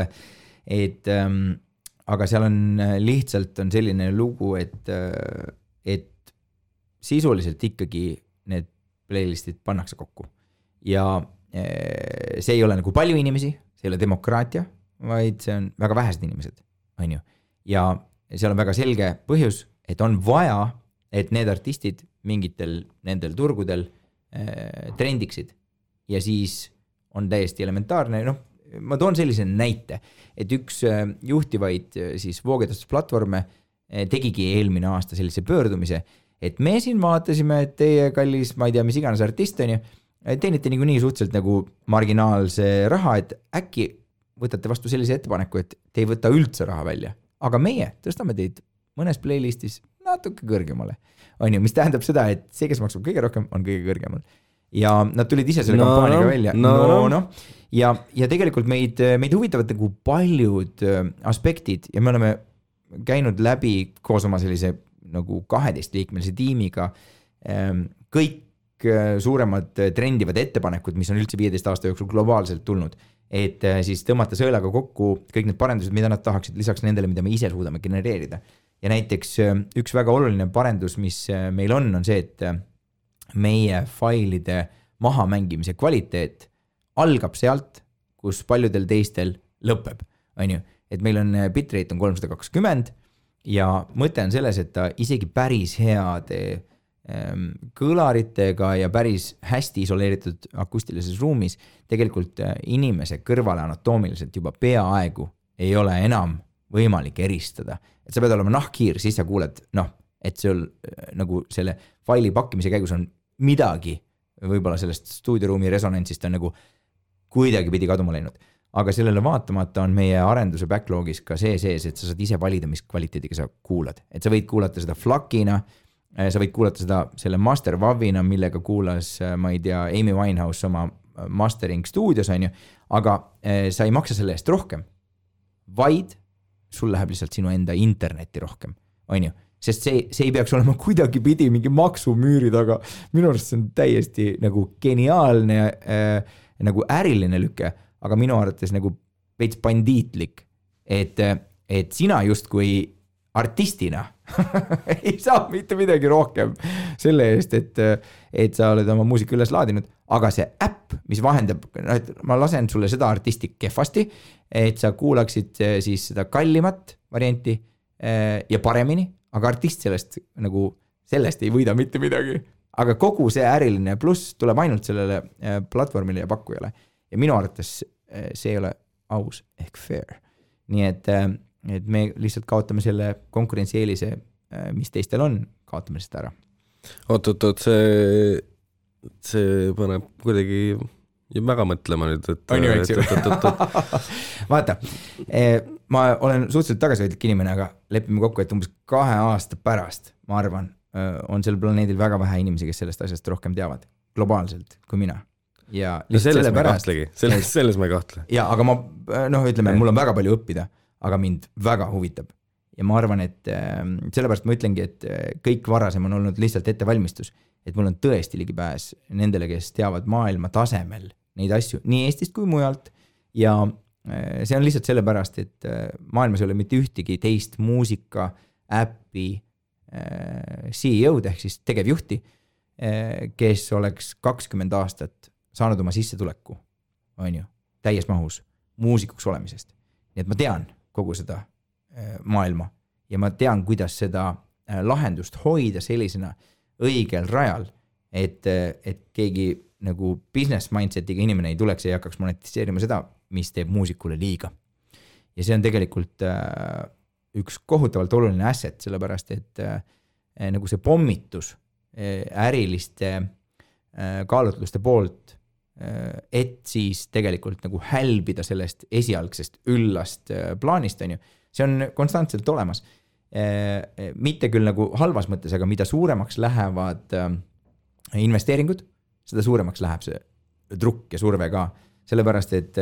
aga seal on lihtsalt on selline lugu, et sisuliselt ikkagi need playlistid pannakse kokku ja see ei ole nagu palju inimesi, see ei ole demokraatia, vaid see on väga vähesed inimesed, on ju. Ja seal on väga selge põhjus, et on vaja, et need artistid mingitel nendel turgudel trendiksid ja siis on täiesti elementaarne, ma toon sellise näite, et üks juhtivaid siis voogedastusplatvorme tegigi eelmine aasta sellise pöördumise, et me siin vaatasime, et teie kallis, ma ei tea, mis iganes artist on ju, teenite nii suhteliselt nagu marginaalse raha, et äkki võtate vastu sellise ettepaneku, et te ei võta üldse raha välja, aga meie tõstame teid mõnes playlistis natuke kõrgemale, on ju, mis tähendab seda, et see, kes maksab kõige rohkem, on kõige kõrgemal. Ja nad tulid ise selle kampaaniaga välja. Ja tegelikult meid huvitavad nagu paljud aspektid ja me oleme käinud läbi koos oma sellise nagu 12-liikmelise tiimiga kõik suuremad trendivad ettepanekud, mis on üldse 15 aasta jooksul globaalselt tulnud, et siis tõmmata sõelaga kokku kõik need parendused, mida nad tahaksid lisaks nendele, mida me ise suudame genereerida. Ja näiteks üks väga oluline parendus, mis meil on see, et meie failide mahamängimise kvaliteet algab sealt, kus paljudel teistel lõpeb, on ju. Et meil on bitrate on 320 ja mõte on selles, et ta isegi päris heade kõlaritega ja päris hästi isoleeritud akustilises ruumis tegelikult inimese kõrvale anatoomiliselt juba peaaegu ei ole enam võimalik eristada. Et sa pead olema nahkhiir, siis sa kuuled, et sul nagu selle faili pakkimise käigus on midagi, võib-olla sellest stuudioruumi resonantsist on nagu kuidagi pidi kaduma läinud. Aga sellele vaatamata on meie arenduse backlogis ka see sees, et sa saad ise valida, mis kvaliteediga sa kuulad. Et sa võid kuulata seda FLAC-ina, sa võid kuulata seda selle master WAV-ina, millega kuulas, ma ei tea, Amy Winehouse oma mastering stuudios, on ju, aga sa ei maksa selle eest rohkem, vaid sul läheb lihtsalt sinu enda interneti rohkem, on ju. Sest see ei peaks olema kuidagi pidi mingi maksumüüri taga. Minu arust see on täiesti nagu geniaalne nagu äriline lüke, aga minu arvates nagu veits bandiitlik, et sina just kui artistina ei saa mitte midagi rohkem selle eest, et sa oled oma muusika üles laadinud, aga see äpp, mis vahendab, et ma lasen sulle seda artisti kehvasti, et sa kuulaksid siis seda kallimat varianti ja paremini, aga artist sellest ei võida mitte midagi. Aga kogu see äriline pluss tuleb ainult sellele platvormile ja pakkujale. Ja minu arvates see ei ole aus ehk fair. Nii et me lihtsalt kaotame selle konkurentsieelise, mis teistel on, kaotame lihtsalt ära. Oot, see paneb kuidagi väga mõtlema nüüd, et on ju, eks ju. Vaata, ma olen suhteliselt tagasihoidlik inimene, aga lepime kokku, et umbes 2 aasta pärast, ma arvan, on sel planeedil väga vähe inimesi, kes sellest asjast rohkem teavad globaalselt kui mina. Ja selles ma ei kahtlegi, selles ma ei kahtle. Ja, aga ma, ütleme, mul on väga palju õppida, aga mind väga huvitab. Ja ma arvan, et sellepärast ma ütlengi, et kõik varasem on olnud lihtsalt ettevalmistus, et mul on tõesti ligipääs nendele, kes teavad maailma tasemel neid asju, nii Eestist kui mujalt. Ja see on lihtsalt sellepärast, et maailmas ei ole mitte ühtegi teist muusika, äppi, CEO-d ehk siis tegevjuhti, kes oleks 20 aastat saanud oma sissetuleku, on ju, täies mahus muusikuks olemisest. Nii et ma tean kogu seda maailma ja ma tean, kuidas seda lahendust hoida sellisena õigel rajal, et keegi nagu business mindsetiga inimene ei tuleks ja ei hakkaks monetiseerima seda, mis teeb muusikule liiga. Ja see on tegelikult üks kohutavalt oluline asset, sellepärast, et nagu see pommitus äriliste kaalutluste poolt, et siis tegelikult nagu hälbida sellest esialgsest üllast plaanist, on ju, see on konstantselt olemas. Mitte küll nagu halvas mõttes, aga mida suuremaks lähevad investeeringud, seda suuremaks läheb see trukk ja surve ka. Sellepärast, et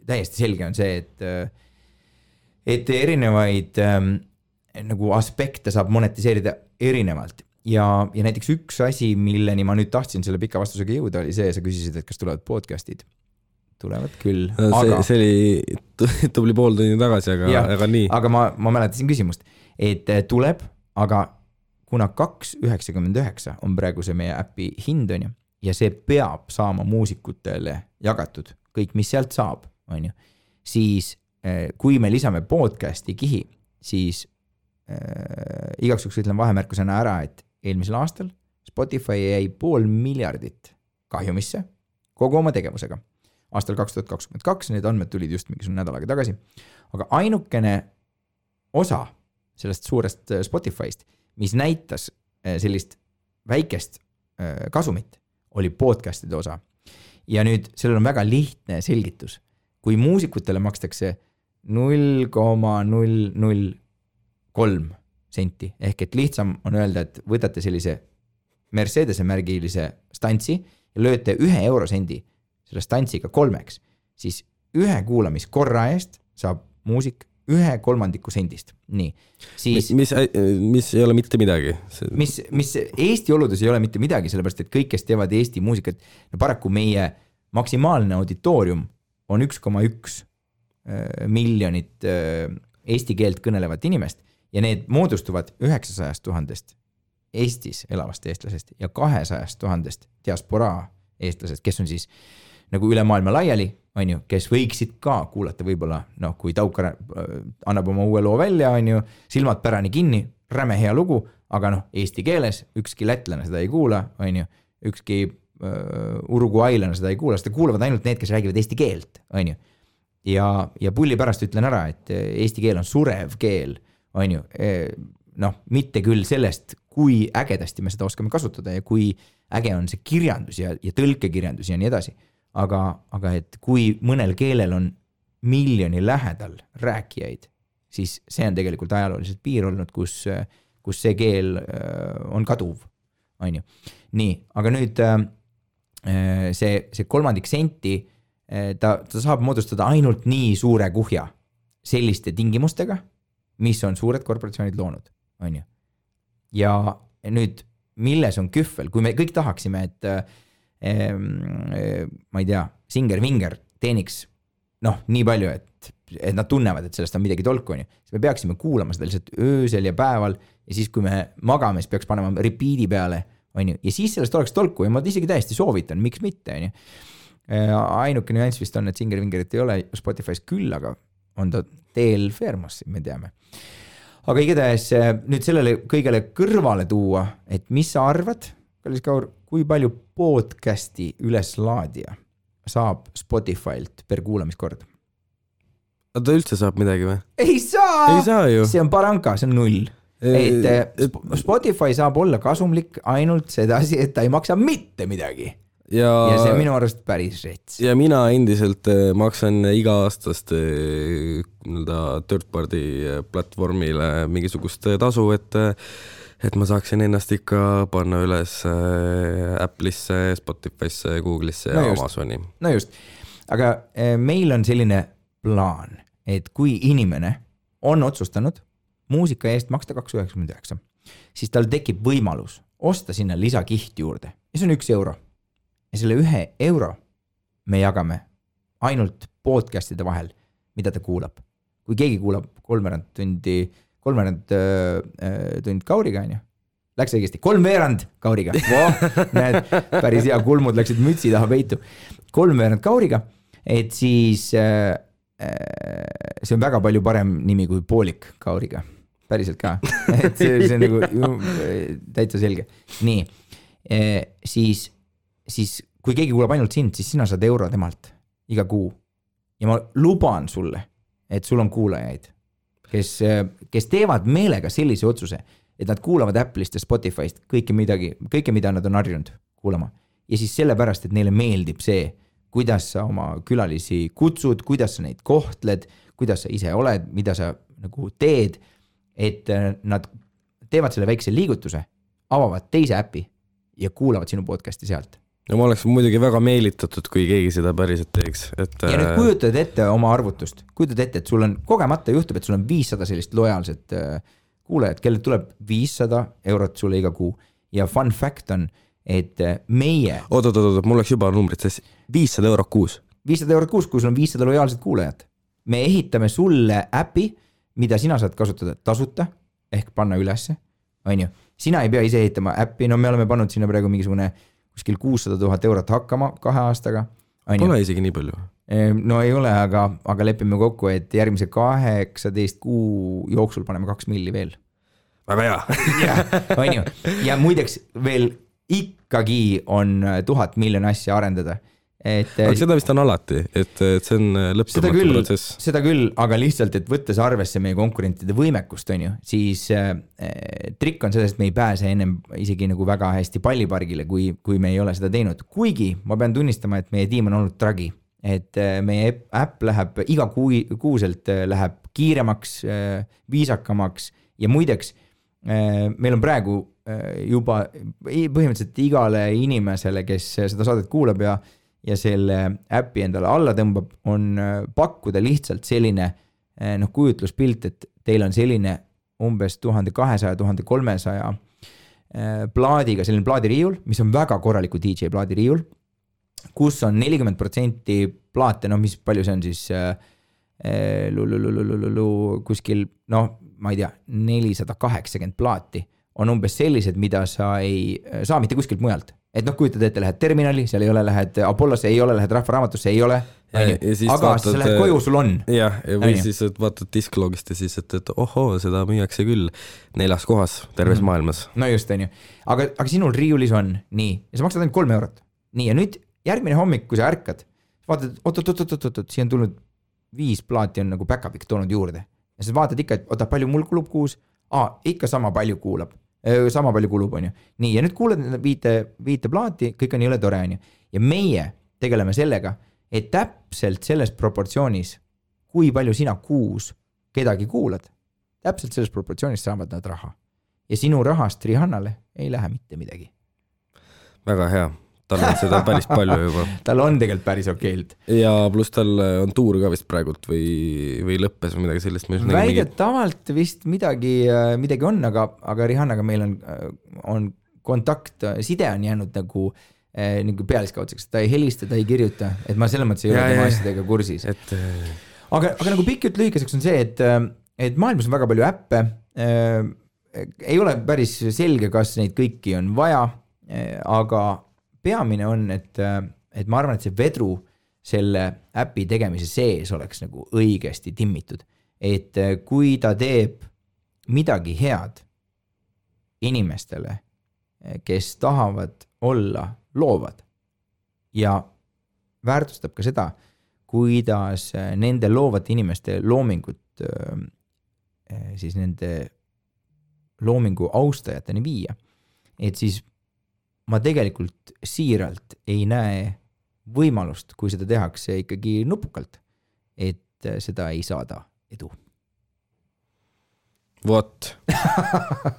täiesti selge on see, et erinevaid nagu aspekte saab monetiseerida erinevalt. Ja näiteks üks asi, milleni ma nüüd tahtsin selle pika vastusega jõuda, oli see, sa küsisid, et kas tulevad podcastid. Tulevad küll. See oli tubli pool tunni tagasi, aga nii. Aga ma mäletasin küsimust, et tuleb, aga kuna 2,99 on praegu see meie äpi hind, on ju, ja see peab saama muusikutele jagatud, kõik, mis sealt saab, on ju, siis kui me lisame podcasti kihi, siis igaks juhuks ütlen vahemärkusena ära, et eelmisel aastal Spotify jäi 500 miljardit kahjumisse kogu oma tegevusega. Aastal 2022 need andmed tulid just mingisugune nädal aega tagasi. Aga ainukene osa sellest suurest Spotify'st, mis näitas sellist väikest kasumit, oli podcastide osa. Ja nüüd sellel on väga lihtne selgitus. Kui muusikutele makstakse 0,003 senti, ehk et lihtsam on öelda, et võtate sellise Mercedese märgilise stantsi ja lööte 1 eurosendi selle stantsiga 3, siis 1 kuulamiskorra eest saab muusik 1/3 sendist. Nii. Siis, mis ei ole mitte midagi. Mis Eesti oludes ei ole mitte midagi, sellepärast, et kõik, kes teevad Eesti muusikat, no paraku meie maksimaalne auditoorium on 1,1 miljonit eesti keelt kõnelevat inimest ja need moodustuvad 900 000 Eestis elavast eestlasest ja 200 000 diasporaa eestlasest, kes on siis nagu üle maailma laiali, on ju, kes võiksid ka kuulata võib-olla, kui Taukar annab oma uue loo välja, on ju, silmad pärani kinni, räme hea lugu, aga eesti keeles ükski lätlane seda ei kuula, on ju, ükski uruguailane seda ei kuula, seda kuulavad ainult need, kes räägivad eesti keelt, on ju. Ja pulli pärast ütlen ära, et eesti keel on surev keel, on ju, mitte küll sellest, kui ägedasti me seda oskame kasutada ja kui äge on see kirjandus ja tõlkekirjandus ja nii edasi. Aga et kui mõnel keelel on miljoni lähedal rääkijaid, siis see on tegelikult ajalooliselt piir olnud, kus see keel on kaduv, on ju. Nii, aga nüüd see 3 senti, ta saab moodustada ainult nii suure kuhja selliste tingimustega, mis on suured korporatsioonid loonud, on ju. Ja nüüd, milles on kühvel, kui me kõik tahaksime, et ma ei tea, Singer-Vinger teeniks nii palju, et nad tunnevad, et sellest on midagi tolku, on ju. Siis me peaksime kuulama seda lihtsalt öösel ja päeval ja siis, kui me magame, siis peaks panema repeat'i peale, on ju. Ja siis sellest oleks tolku ja ma isegi täiesti soovitan, miks mitte, on ju. Ainuke nüanss vist on, et Singer-Vingerit ei ole Spotify's küll, aga on ta Del Fermosi, me teame. Aga igatahes nüüd sellele kõigele kõrvale tuua, et mis sa arvad, Kallis Kaur, kui palju podcasti üleslaadija saab Spotify'lt per kuulamiskord? Ta üldse saab midagi või? Ei saa ju. See on paranka, see on 0. et Spotify saab olla kasumlik ainult sedasi, et ta ei maksa mitte midagi. Ja see on minu arust päris rets. Ja mina endiselt maksan iga-aastast third party platvormile mingisugust tasu, et ma saaksin ennast ikka panna üles Apple'isse, Spotify'sse, Google'isse ja Amazoni. No just, aga meil on selline plaan, et kui inimene on otsustanud muusika eest maksta 2,99, siis tal tekib võimalus osta sinna lisakiht juurde ja see on 1 euro. Ja selle 1 euro me jagame ainult podcastide vahel, mida ta kuulab. Kui keegi kuulab 3/4 tund Kauriga, läks õigesti, 3/4 Kauriga. Näed, päris hea, kulmud läksid mütsi taha peitu. 3/4 Kauriga, et siis see on väga palju parem nimi kui poolik Kauriga. Päriselt ka. Et see on nagu täitsa selge. Nii, siis kui keegi kuulab ainult sind, siis sina saad euro temalt iga kuu. Ja ma luban sulle, et sul on kuulajaid, kes teevad meelega sellise otsuse, et nad kuulavad Apple'ist ja Spotify'st kõike, mida nad on harjunud kuulama. Ja siis sellepärast, et neile meeldib see, kuidas sa oma külalisi kutsud, kuidas sa neid kohtled, kuidas sa ise oled, mida sa nagu teed, et nad teevad selle väikse liigutuse, avavad teise äpi ja kuulavad sinu podcasti sealt. No ma oleks muidugi väga meelitatud, kui keegi seda päriselt teeks. Ja nüüd kujutad ette oma arvutust, kujutad ette, et sul on kogemata juhtub, et sul on 500 sellist lojaalset kuulajat, kellel tuleb 500 eurot sulle iga kuu. Ja fun fact on, et meie... Oot, mul oleks juba numbrid sees. 500 eurot kuus. 500 eurot kuus, kui sul on 500 lojaalset kuulajat. Me ehitame sulle äpi, mida sina saad kasutada tasuta, ehk panna ülesse. Sina ei pea ise ehitama äppi, no me oleme pannud sinna praegu mingisugune kuskil 600 000 eurot hakkama 2 aastaga. Pole isegi nii palju. No ei ole, aga lepime kokku, et järgmise 18 kuu jooksul paneme 2 milli veel. Väga hea. Ja muideks veel ikkagi on 1000 miljon asja arendada. Aga seda vist on alati, et see on lõppematu protsess. Seda küll, aga lihtsalt, et võttes arvesse meie konkurentide võimekust, siis trikk on sellest, et me ei pääse ennem isegi nagu väga hästi pallipargile, kui me ei ole seda teinud. Kuigi ma pean tunnistama, et meie tiim on olnud tragi, et meie äpp läheb iga kuuselt läheb kiiremaks, viisakamaks ja muideks meil on praegu juba põhimõtteliselt igale inimesele, kes seda saadet kuulab ja selle äppi endale alla tõmbab, on pakkuda lihtsalt selline kujutluspilt, et teil on selline umbes 1200-1300 plaadiga, selline plaadiriiul, mis on väga korraliku DJ plaadiriiul, kus on 40% plaate, mis palju see on siis kuskil, ma ei tea, 480 plaati on umbes sellised, mida sa ei saa mitte kuskilt mujalt. Et kujutad ette, lähed terminali, seal ei ole, lähed Apollosse, ei ole, lähed Rahvaraamatusse, ei ole. Aga sa lähed koju, sul on. Jah, või siis vaatad disklogist ja siis, et ohoo, seda müüakse küll 4 kohas terves maailmas. No just, aga sinul riiulis on nii, ja sa maksad ainult 3 eurot. Nii, ja nüüd järgmine hommik, kui sa ärkad, vaatad, oot, siia on tulnud 5 plaati on nagu backup'iks toonud juurde. Ja sa vaatad ikka, et palju mul kulub kuus? Ikka sama palju kulub, on ju. Nii, ja nüüd kuuled viite plaati, kõik on jõle tore, on ju. Ja meie tegeleme sellega, et täpselt selles proportsioonis, kui palju sina kuus kedagi kuulad, täpselt selles proportsioonis saavad nad raha. Ja sinu rahast Rihannale ei lähe mitte midagi. Väga hea. Tal on seda päris palju juba. Tal on tegelikult päris okeilt. Ja pluss tal on tuur ka vist praegult või lõppes või midagi sellist. Väidetavalt vist midagi on, aga Rihannaga meil on kontakt, side on jäänud nagu pealiskaudseks, ta ei helista, ta ei kirjuta, et ma selles mõttes ei ole tema asjadega kursis. Aga nagu pikk jutt lühikeseks on see, et maailmas on väga palju äppe, ei ole päris selge, kas neid kõiki on vaja, aga peamine on, et ma arvan, et see vedru selle äpi tegemise sees oleks nagu õigesti timmitud. Et kui ta teeb midagi head inimestele, kes tahavad olla loovad ja väärtustab ka seda, kuidas nende loovate inimeste loomingut siis nende loomingu austajateni viia. Et siis ma tegelikult siiralt ei näe võimalust, kui seda tehakse ikkagi nupukalt, et seda ei saada edu. Vot.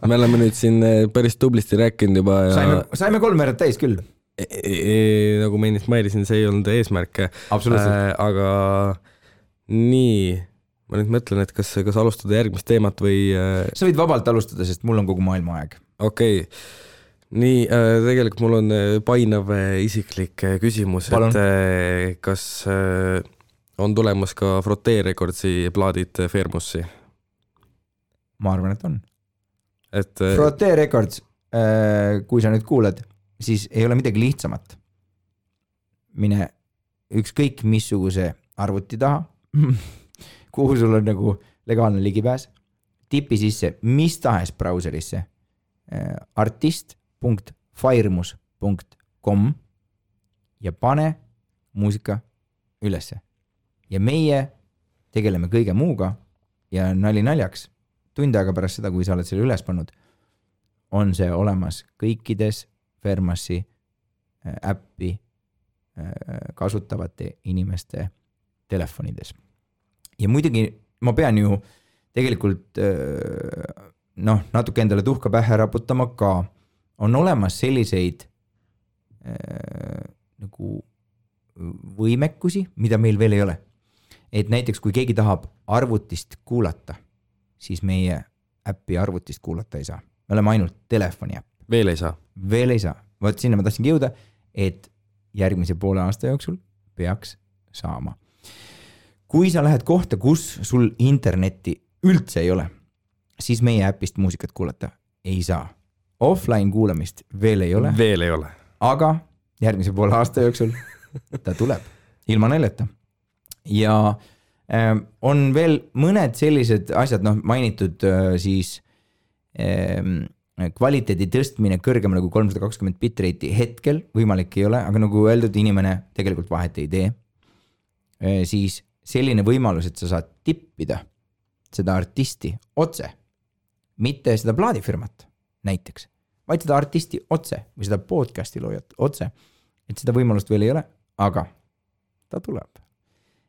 Me oleme nüüd siin päris tublisti rääkinud juba ja... Saime 3 veerad täis küll. Nagu ma ennist mailisin, see ei olnud eesmärk. Aga nii, ma nüüd mõtlen, et kas alustada järgmist teemat või... Sa võid vabalt alustada, sest mul on kogu maailma aeg. Okei. Nii, tegelikult mul on painav isiklik küsimus, Palun. et kas on tulemas ka Frotee Recordsi plaadid Fairmussi? Ma arvan, et on. Frotee Records, kui sa nüüd kuuled, siis ei ole midagi lihtsamat. Mine ükskõik missuguse arvuti taha, kuhu sul on nagu legaalne ligipääs, tipi sisse mis tahes brauserisse artist.firemus.com ja pane muusika ülesse. Ja meie tegeleme kõige muuga ja nali naljaks, tund aega pärast seda, kui sa oled selle üles pannud, on see olemas kõikides Fairmussi äppi kasutavate inimeste telefonides. Ja muidugi ma pean ju tegelikult natuke endale tuhka pähe raputama ka. On olemas selliseid nagu võimekusi, mida meil veel ei ole. Et näiteks kui keegi tahab arvutist kuulata, siis meie äppi arvutist kuulata ei saa. Me oleme ainult telefoni äpp. Veel ei saa? Veel ei saa. Võt sinna ma tahtsingi jõuda, et järgmise poole aasta jooksul peaks saama. Kui sa lähed kohta, kus sul internetti üldse ei ole, siis meie äpist muusikat kuulata ei saa. Offline kuulamist veel ei ole. Veel ei ole. Aga järgmise poole aasta jooksul ta tuleb ilma naljata. Ja on veel mõned sellised asjad, mainitud siis kvaliteedi tõstmine kõrgemale kui 320 bitrate'i hetkel võimalik ei ole, aga nagu öeldud, inimene tegelikult vahet ei tee. Siis selline võimalus, et sa saad tippida seda artisti otse, mitte seda plaadifirmat näiteks, vaid seda artisti otse või seda podcasti loojat otse, et seda võimalust veel ei ole, aga ta tuleb.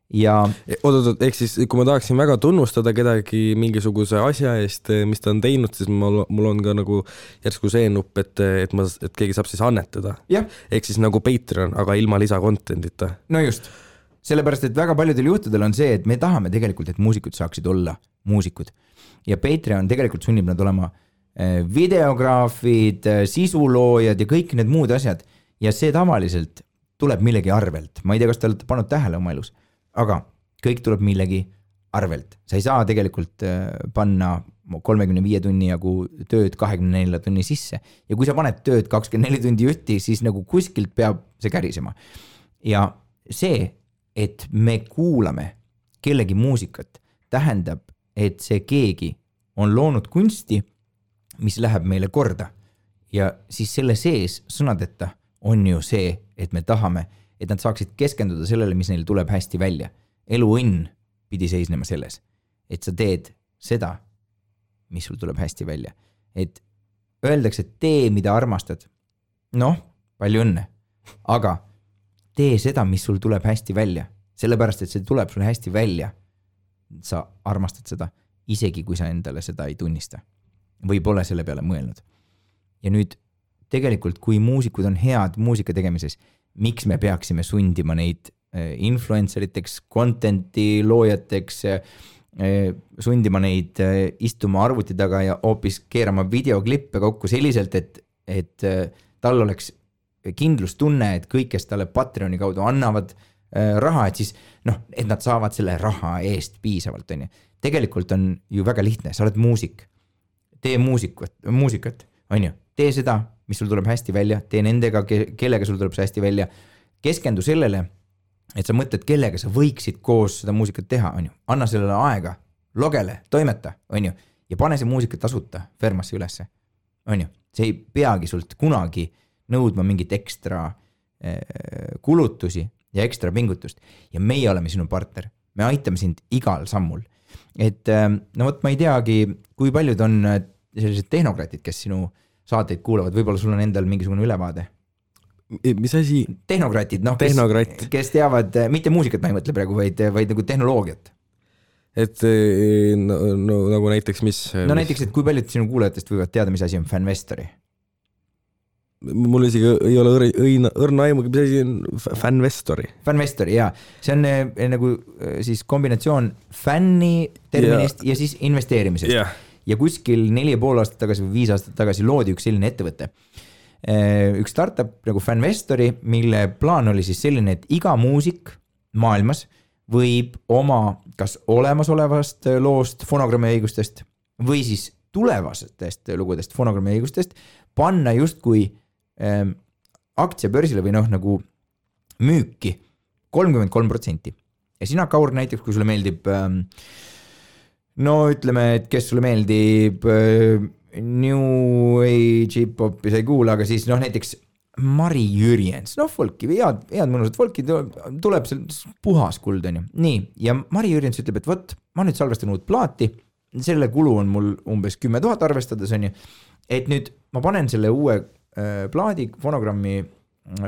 Ja ehk siis kui ma tahaksin väga tunnustada kedagi mingisuguse asja eest, mis ta on teinud, siis mul on ka nagu järsku see nupp, et keegi saab siis annetada. Ehk siis nagu Patreon, aga ilma lisakontentita. No just, sellepärast, et väga paljudel juhtudel on see, et me tahame tegelikult, et muusikud saaksid olla muusikud. Ja Patreon tegelikult sunnib nad olema videograafid, sisuloojad ja kõik need muud asjad. Ja see tavaliselt tuleb millegi arvelt. Ma ei tea, kas te olete pannud tähele oma elus. Aga kõik tuleb millegi arvelt. Sa ei saa tegelikult panna 35 tunni jagu tööd 24 tunni sisse. Ja kui sa paned tööd 24 tundi jutti, siis nagu kuskilt peab see kärisema. Ja see, et me kuulame kellegi muusikat, tähendab, et see keegi on loonud kunsti, mis läheb meile korda. Ja siis selle sees sõnadeta on ju see, et me tahame, et nad saaksid keskenduda sellele, mis neil tuleb hästi välja. Elu õnn pidi seisnema selles, et sa teed seda, mis sul tuleb hästi välja. Et öeldakse, et tee, mida armastad. Palju õnne. Aga tee seda, mis sul tuleb hästi välja. Sellepärast, et see tuleb sul hästi välja. Sa armastad seda, isegi kui sa endale seda ei tunnista. Või pole selle peale mõelnud. Ja nüüd tegelikult, kui muusikud on head muusika tegemises, miks me peaksime sundima neid influenceriteks, contenti loojateks, sundima neid istuma arvuti taga ja hoopis keerama videoklippe kokku selliselt, et tal oleks kindlustunne, et kõik, kes talle Patreoni kaudu annavad raha, et siis, et nad saavad selle raha eest piisavalt. Tegelikult on ju väga lihtne, sa oled muusik, tee muusikat, tee seda, mis sul tuleb hästi välja, tee nendega, kellega sul tuleb see hästi välja, keskendu sellele, et sa mõtled, kellega sa võiksid koos seda muusikat teha, anna sellele aega, logele, toimeta, ja pane see muusika tasuta Fairmussi ülesse, see ei peagi sult kunagi nõudma mingit ekstra kulutusi ja ekstra pingutust, ja meie oleme sinu partner, me aitame sind igal sammul, et ma ei teagi, kui paljud on sellised tehnokratid, kes sinu saateid kuulavad, võib-olla sul on endal mingisugune ülevaade? Mis asi? Tehnokratid, noh, kes teavad, mitte muusikat ma ei mõtle praegu, vaid nagu tehnoloogiat. Et no, nagu näiteks mis? No näiteks, et kui paljud sinu kuulajatest võivad teada, mis asi on Fanvestori? Mul isegi ei ole õrna aimugi, mis asi on Fanvestori. Fanvestori, jaa. See on nagu siis kombinatsioon fänni terminist ja siis investeerimisest. Yeah. Ja kuskil 4,5 aastat tagasi või 5 aastat tagasi loodi üks selline ettevõte. Üks startup nagu Fanvestori, mille plaan oli siis selline, et iga muusik maailmas võib oma kas olemasolevast loost, fonogrammi õigustest või siis tulevastest lugudest, fonogrammi õigustest panna justkui aktsiabörsile või noh, nagu müüki 33%. Ja sina, Kaur, näiteks, kui sulle meeldib, no ütleme, et kes sulle meeldib New Age hip-hopi sa ei kuula, aga siis noh, näiteks Mari Jürjens, noh, folki, head mõnusad folki, tuleb seal puhas kuld, on ju. Nii, ja Mari Jürjens ütleb, et võt, ma nüüd salvestan uut plaati, selle kulu on mul umbes 10 000 arvestades, on ju, et nüüd ma panen selle uue plaadi fonogrammi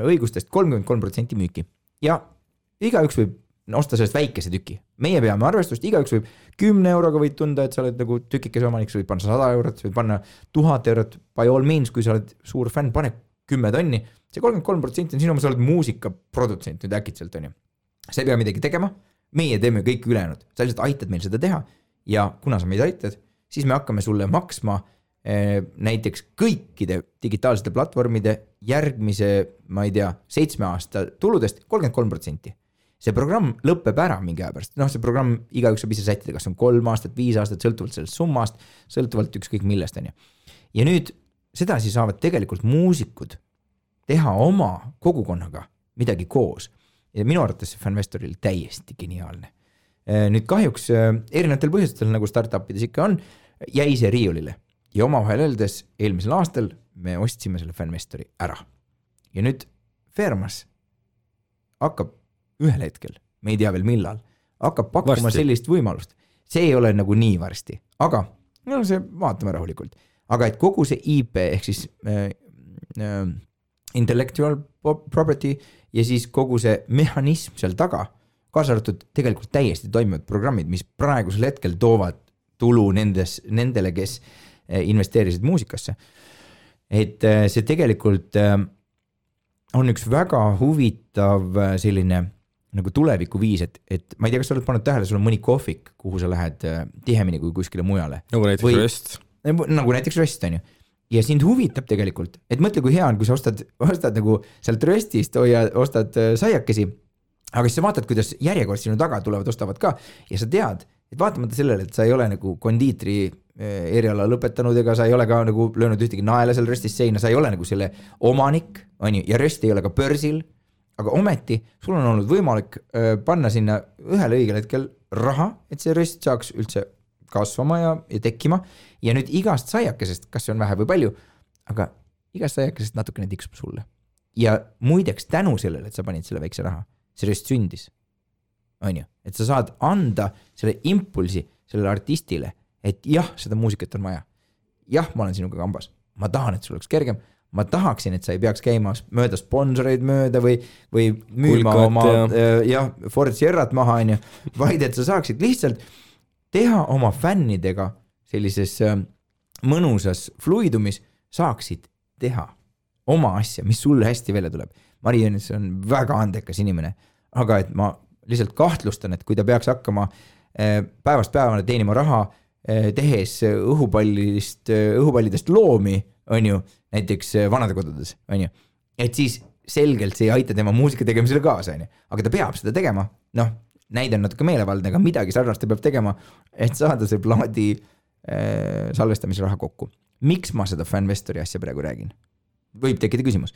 õigustest 33% müüki ja igaüks võib osta sellest väikese tüki. Meie peame arvestust, igaüks võib 10 euroga võid tunda, et sa oled nagu tükikese omanik, sa võid panna 100 eurot, sa võid panna 1000 eurot, by all means, kui sa oled suur fänn, pane 10 tonni, see 33% on sinu, sa oled muusikaprodutsent nüüd äkitselt, on ju. Sa ei pea midagi tegema, meie teeme kõik ülejäänud, sa lihtsalt aitad meil seda teha ja kuna sa meid aitad, siis me hakkame sulle maksma näiteks kõikide digitaalsete platvormide järgmise, ma ei tea, 7 aasta tuludest 33%. See programm lõpeb ära mingi aja pärast. Noh, see programm igaüks saab ise sättida, kas on 3 aastat, 5 aastat, sõltuvalt sellest summast, sõltuvalt ükskõik millest on ju. Ja nüüd seda siis saavad tegelikult muusikud teha oma kogukonnaga midagi koos. Ja minu arvates see Fanvestoril täiesti geniaalne. Nüüd kahjuks erinevatel põhjustel, nagu startupides ikka on, jäi see riiulile. Ja omavahel öeldes eelmisel aastal me ostsime selle Fanvestori ära. Ja nüüd Fermas hakkab ühel hetkel, me ei tea veel millal, hakkab pakkuma sellist võimalust. See ei ole nagu nii varsti, aga no see vaatame rahulikult. Aga et kogu see IP ehk siis intellectual property ja siis kogu see mehhanism seal taga, kaasa arvatud tegelikult täiesti toimivad programmid, mis praegusel hetkel toovad tulu nendele, kes investeerisid muusikasse. Et see tegelikult on üks väga huvitav selline nagu tuleviku viis, et ma ei tea, kas sa oled pannud tähele, sul on mõni kohvik, kuhu sa lähed tihemini kui kuskile mujale. Nagu näiteks Röst. Nagu näiteks Röst, on ju. Ja sind huvitab tegelikult, et mõtle, kui hea on, kui sa ostad nagu sealt Röstist ostad saiakesi, aga siis sa vaatad, kuidas järjekord sinu taga tulevad, ostavad ka ja sa tead, et vaatamata sellele, et sa ei ole nagu kondiitri eriala lõpetanud ega sa ei ole ka nagu löönud ühtegi naela seal Röstis seina, sa ei ole nagu selle omanik, on ju, ja Röst ei ole ka börsil, aga ometi sul on olnud võimalik panna sinna ühel õigel hetkel raha, et see Röst saaks üldse kasvama ja tekkima ja nüüd igast saiakesest, kas see on vähe või palju, aga igast saiakesest natukene tiksub sulle. Ja muideks tänu sellele, et sa panid selle väikse raha, see Röst sündis, on ju, et sa saad anda selle impulsi sellele artistile, et jah, seda muusikat on vaja. Jah, ma olen sinuga kambas. Ma tahan, et sul oleks kergem. Ma tahaksin, et sa ei peaks käima mööda sponsoreid mööda või müüma Kulkat, oma Ford Sierrat maha, on ju, vaid et sa saaksid lihtsalt teha oma fännidega sellises mõnusas fluidumis, saaksid teha oma asja, mis sulle hästi välja tuleb. Mari Jürjens on väga andekas inimene, aga et ma lihtsalt kahtlustan, et kui ta peaks hakkama päevast päevana teenima raha, tehes õhupallidest loomi, on ju, näiteks vanadekodudes, on ju, et siis selgelt see ei aita tema muusika tegemisele kaasa, on ju, aga ta peab seda tegema, noh, näide on natuke meelevaldne, aga midagi sarnast ta peab tegema, et saada see plaadi salvestamise raha kokku. Miks ma seda Fanvestori asja praegu räägin? Võib tekkida küsimus.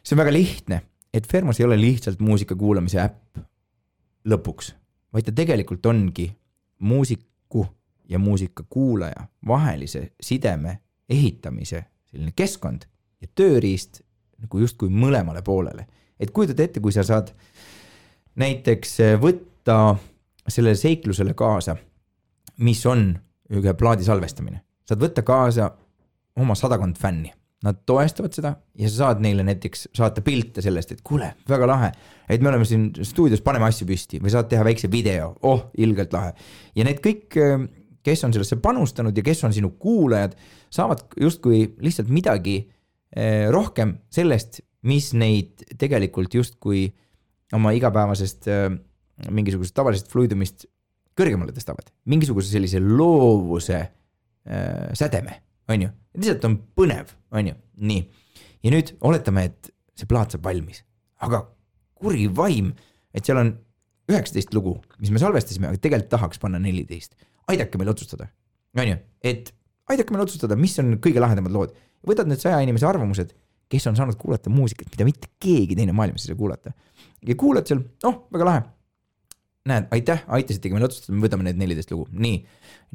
See on väga lihtne, et Fermas ei ole lihtsalt muusika kuulamise äpp lõpuks, vaid ta tegelikult ongi muusiku ja muusika kuulaja vahelise sideme ehitamise selline keskkond ja tööriist nagu justkui mõlemale poolele. Et kujutad ette, kui sa saad näiteks võtta sellele seiklusele kaasa, mis on ühe plaadi salvestamine. saad võtta kaasa oma 100 fänni. Nad toestavad seda ja sa saad neile näiteks saata pilte sellest, et kuule, väga lahe, et me oleme siin stuudios, paneme asju püsti või saad teha väikse video, ilgelt lahe. Ja need kõik, kes on sellesse panustanud ja kes on sinu kuulajad, saavad justkui lihtsalt midagi rohkem sellest, mis neid tegelikult justkui oma igapäevasest mingisugusest tavalisest fluidumist kõrgemale tõstavad. Mingisuguse sellise loovuse sädeme, on ju. Lihtsalt on põnev, on ju. Nii. Ja nüüd oletame, et see plaat saab valmis. Aga kuri vaim, et seal on 19 lugu, mis me salvestasime, aga tegelikult tahaks panna 14. Aidake meil otsustada. On ju. Et aidake meil otsustada, mis on kõige lahedamad lood. Võtad need 100 inimese arvamused, kes on saanud kuulata muusikat, mida mitte keegi teine maailmas ei saa kuulata. Ja kuulad seal, väga lahe. Näed, aitäh, aitasitegi meil otsustada, me võtame need 14 lugu. Nii,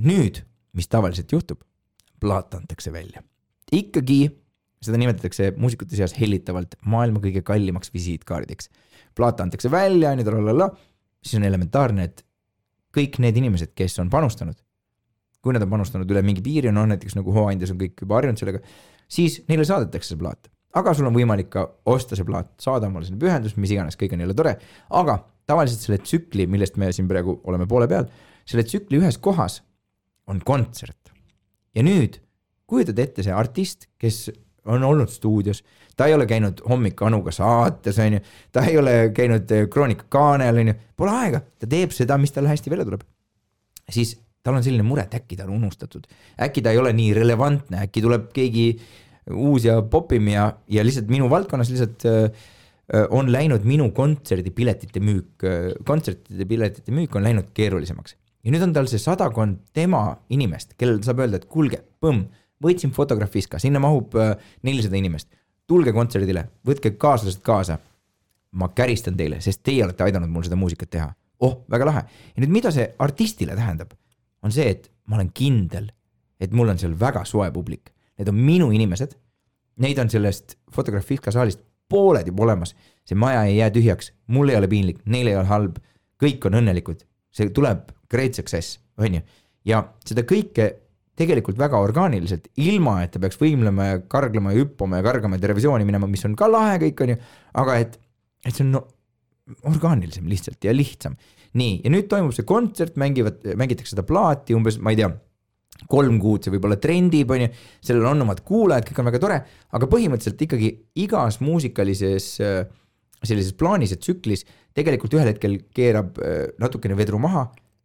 nüüd, mis tavaliselt juhtub, plaat antakse välja. Ikkagi, seda nimetatakse muusikute seas hellitavalt maailma kõige kallimaks visiitkaardeks. Plaat antakse välja, siis on elementaarne, et kõik need inimesed, kes on panustanud, kui nad on panustanud üle mingi piiri, näiteks nagu hooandjas on kõik juba harjunud sellega, siis neile saadetakse see plaat. Aga sul on võimalik ka osta see plaat, saada omale selle pühendus, mis iganes, kõik on jälle tore. Aga tavaliselt selle tsükli, millest me siin praegu oleme poole peal, selle tsükli ühes kohas on kontsert. Ja nüüd kujutad ette see artist, kes on olnud stuudios, ta ei ole käinud hommik Anuga saates, on ju, ta ei ole käinud Kroonika kaanel, on ju, pole aega, ta teeb seda, mis tal hästi välja tuleb. Siis tal on selline mure, et äkki ta on unustatud, äkki ta ei ole nii relevantne, äkki tuleb keegi uus ja popim ja lihtsalt minu valdkonnas lihtsalt on läinud minu kontsertide piletite müük on läinud keerulisemaks. Ja nüüd on tal see 100 tema inimest, kellel saab öelda, et kulge, võtsin Fotografiska, sinna mahub 400 inimest, tulge kontserdile, võtke kaaslased kaasa, ma käristan teile, sest teie olete aidanud mul seda muusikat teha. Väga lahe. Ja nüüd mida see artistile tähendab, on see, et ma olen kindel, et mul on seal väga soe publik. Need on minu inimesed, neid on sellest Fotografiska saalist pooled juba olemas, see maja ei jää tühjaks, mul ei ole piinlik, neil ei ole halb, kõik on õnnelikud, see tuleb great success, on ju. Ja seda kõike tegelikult väga orgaaniliselt, ilma et ta peaks võimlema ja karglema ja hüppama ja kargama ja televisiooni minema, mis on ka lahe kõik, on ju, aga et see on orgaanilisem lihtsalt ja lihtsam. Nii, ja nüüd toimub see kontsert, mängitakse seda plaati umbes, ma ei tea, 3 kuud, see võib olla trendib, on ju, sellel on omad kuulajad, kõik on väga tore, aga põhimõtteliselt ikkagi igas muusikalises sellises plaanis ja tsüklis tegelikult ühel hetkel keerab natukene vedru maha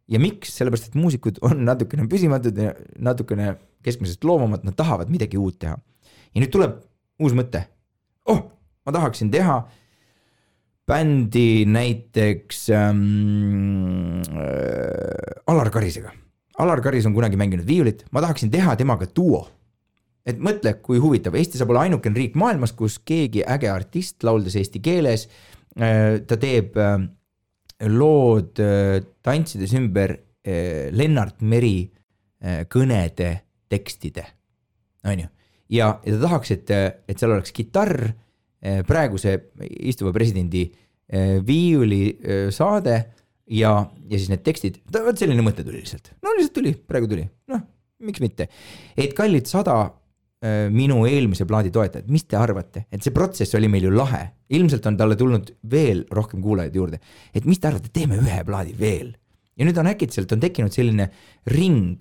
ja miks? Sellepärast, et muusikud on natukene püsimatud ja natukene keskmisest loomamad, nad tahavad midagi uut teha. Ja nüüd tuleb uus mõte. Ma tahaksin teha bändi näiteks Alar Karisega. Alar Karis on kunagi mänginud viiulit, ma tahaksin teha temaga duo. Et mõtle, kui huvitav, Eesti saab olla ainukene riik maailmas, kus keegi äge artist lauldes eesti keeles, ta teeb lood tantsides ümber Lennart Meri kõnede tekstide. On ju? Ja ta tahaks, et seal oleks kitarr, praeguse istuva presidendi viiuli saade, ja siis need tekstid, selline mõte tuli lihtsalt. Lihtsalt tuli, praegu tuli. Miks mitte? Et kallid 100 minu eelmise plaadi toetajad, mis te arvate? Et see protsess oli meil ju lahe. Ilmselt on talle tulnud veel rohkem kuulajaid juurde. Et mis te arvate? Teeme ühe plaadi veel. Ja nüüd on äkitselt on tekkinud selline ring.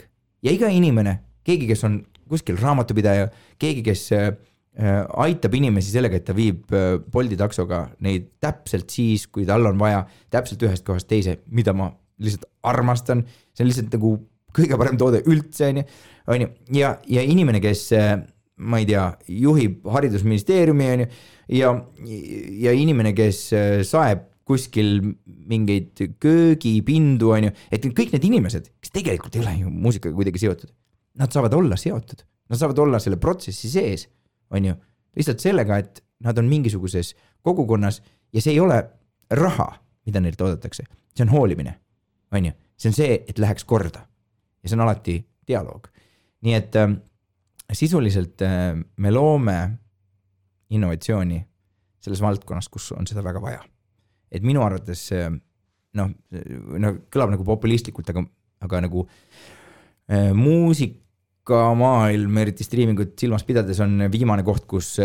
Ja iga inimene, keegi, kes on kuskil raamatupidaja, keegi, kes aitab inimesi sellega, et ta viib Bolti taksoga neid täpselt siis, kui tal on vaja täpselt ühest kohast teise, mida ma lihtsalt armastan, see on lihtsalt nagu kõige parem toode üldse, on ju. Ja inimene, kes, ma ei tea, juhib haridusministeeriumi, on ju, ja inimene, kes saeb kuskil mingeid köögipindu, on ju, et kõik need inimesed, kes tegelikult ei ole ju muusikaga kuidagi seotud, nad saavad olla seotud, nad saavad olla selle protsessi sees, on ju, lihtsalt sellega, et nad on mingisuguses kogukonnas ja see ei ole raha, mida neilt oodatakse, see on hoolimine, on ju, see on see, et läheks korda ja see on alati dialoog. Nii et sisuliselt me loome innovatsiooni selles valdkonnas, kus on seda väga vaja. Et minu arvates kõlab nagu populistlikult, aga nagu muusik muusikamaailm, eriti striimingut silmas pidades on viimane koht, kus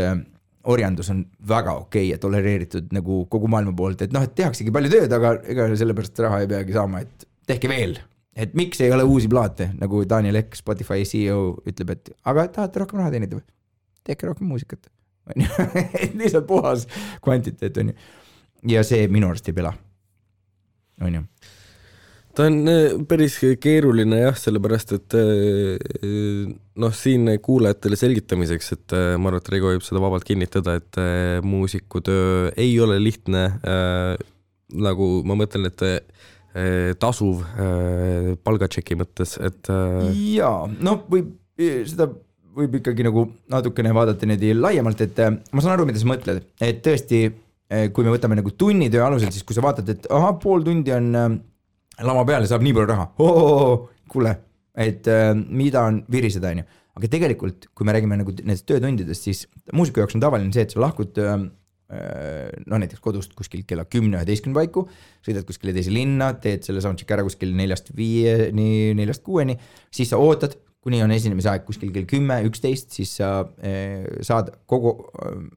orjandus on väga okei ja tolereeritud nagu kogu maailma poolt, et noh, et tehaksegi palju tööd, aga ega sellepärast raha ei peagi saama, et tehke veel, et miks ei ole uusi plaate, nagu Daniel Ek, Spotify CEO ütleb, et aga tahate rohkem raha teenida või? Tehke rohkem muusikat. Et lihtsalt puhas kvantiteet on ju. Ja see minu arust ei pela. On ju. Ta on päris keeruline jah, sellepärast, et noh, siin kuulajatele selgitamiseks, et ma arvan, et Reigo võib seda vabalt kinnitada, et muusikutöö ei ole lihtne, nagu ma mõtlen, et tasuv palgatšeki mõttes, et jaa, no seda võib ikkagi nagu natukene vaadata niimoodi laiemalt, et ma saan aru, mida sa mõtled, et tõesti, kui me võtame nagu tunnitöö alusel, siis kui sa vaatad, et pool tundi on lama peale, saab nii palju raha, kuule, et mida on viriseda, on ju. Aga tegelikult, kui me räägime nagu nendest töötundidest, siis muusiku jaoks on tavaline see, et sa lahkud no näiteks kodust kuskil kella 10-11 paiku, sõidad kuskile teise linna, teed selle soundcheck ära kuskil 4-5-ni, 4-6-ni, siis sa ootad, kuni on esinemise aeg kuskil kell 10-11, siis sa saad kogu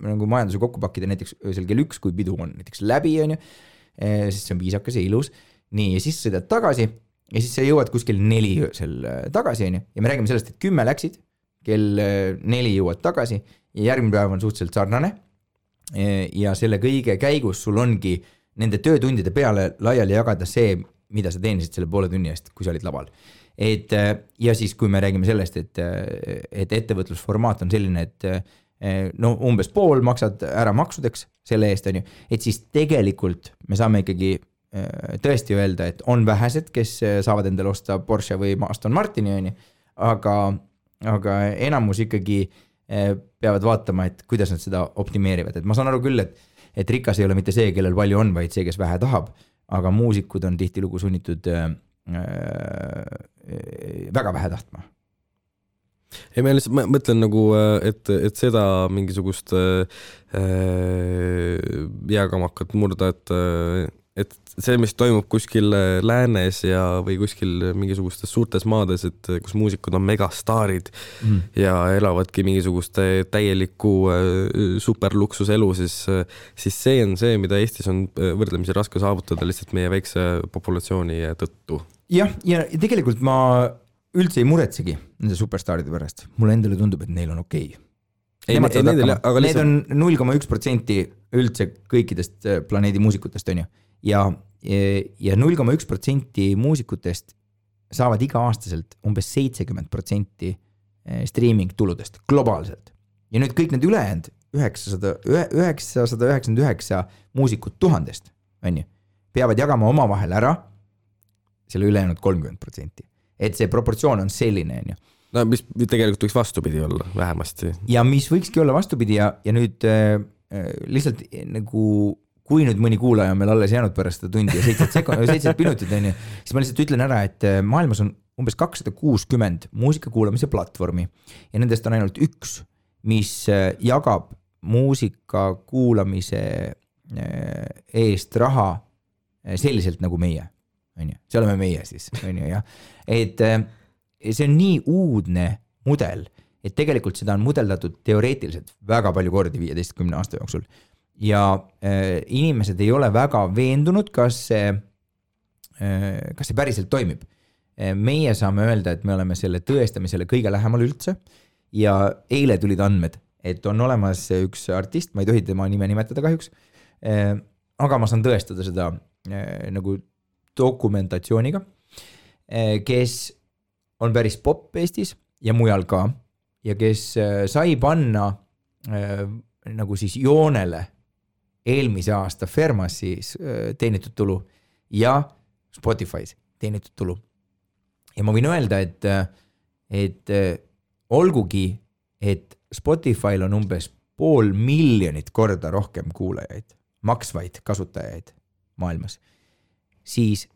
nagu majanduse kokku pakkida näiteks öösel kell 1, kui pidu on näiteks läbi, on ju, sest see on viisakas ja ilus. Nii, ja siis sõidad tagasi ja siis sa jõuad kuskil 4 öösel tagasi, on ju, ja me räägime sellest, et 10 läksid, kell 4 jõuad tagasi ja järgmine päev on suhteliselt sarnane ja selle kõige käigus sul ongi nende töötundide peale laiali jagada see, mida sa teenisid selle poole tunni eest, kui sa olid laval. Et, ja siis, kui me räägime sellest, et ettevõtlusformaat on selline, et no umbes pool maksad ära maksudeks selle eest, on ju, et siis tegelikult me saame ikkagi tõesti öelda, et on vähesed, kes saavad endale osta Porsche või Aston Martini, on ju, aga enamus ikkagi peavad vaatama, et kuidas nad seda optimeerivad. Et ma saan aru küll, et rikas ei ole mitte see, kellel palju on, vaid see, kes vähe tahab, aga muusikud on tihtilugu sunnitud väga vähe tahtma. Ei, ma lihtsalt mõtlen nagu, et seda mingisugust jääkamakat murda, et see, mis toimub kuskil läänes ja või kuskil mingisugustes suurtes maades, et kus muusikud on megastaarid ja elavadki mingisugust täielikku superluksuselu, siis see on see, mida Eestis on võrdlemisi raske saavutada lihtsalt meie väikse populatsiooni tõttu. Jah, ja tegelikult ma üldse ei muretsegi nende superstaaride pärast. Mulle endale tundub, et neil on okei. Need on 0,1% üldse kõikidest planeedi muusikutest, on ju. Ja 0,1% muusikutest saavad iga-aastaselt umbes 70% streaming tuludest globaalselt. Ja nüüd kõik need ülejäänud 999 muusikut 1000, on ju, peavad jagama oma vahel ära selle ülejäänud 30%. Et see proportsioon on selline, on ju. No, mis tegelikult võiks vastupidi olla, vähemasti. Ja mis võikski olla vastupidi ja nüüd lihtsalt nagu kui nüüd mõni kuulaja on meil alles jäänud pärast seda tundi ja 7 minutit, on ju, siis ma lihtsalt ütlen ära, et maailmas on umbes 260 muusika kuulamise platvormi ja nendest on ainult üks, mis jagab muusika kuulamise eest raha selliselt nagu meie, on ju. See oleme meie siis, on ju, jah. Et see on nii uudne mudel, et tegelikult seda on mudeldatud teoreetiliselt väga palju kordi 15 aasta jooksul. Ja inimesed ei ole väga veendunud, kas see päriselt toimib. Meie saame öelda, et me oleme selle tõestamisele kõige lähemal üldse ja eile tulid andmed, et on olemas üks artist, ma ei tohi tema nime nimetada kahjuks, aga ma saan tõestada seda nagu dokumentatsiooniga, kes on päris pop Eestis ja mujal ka ja kes sai panna nagu siis joonele eelmise aasta Fermasis teenitud tulu ja Spotify's teenitud tulu. Ja ma võin öelda, et olgugi, et Spotify'l on umbes 500,000 korda rohkem kuulajaid, maksvaid kasutajaid maailmas, siis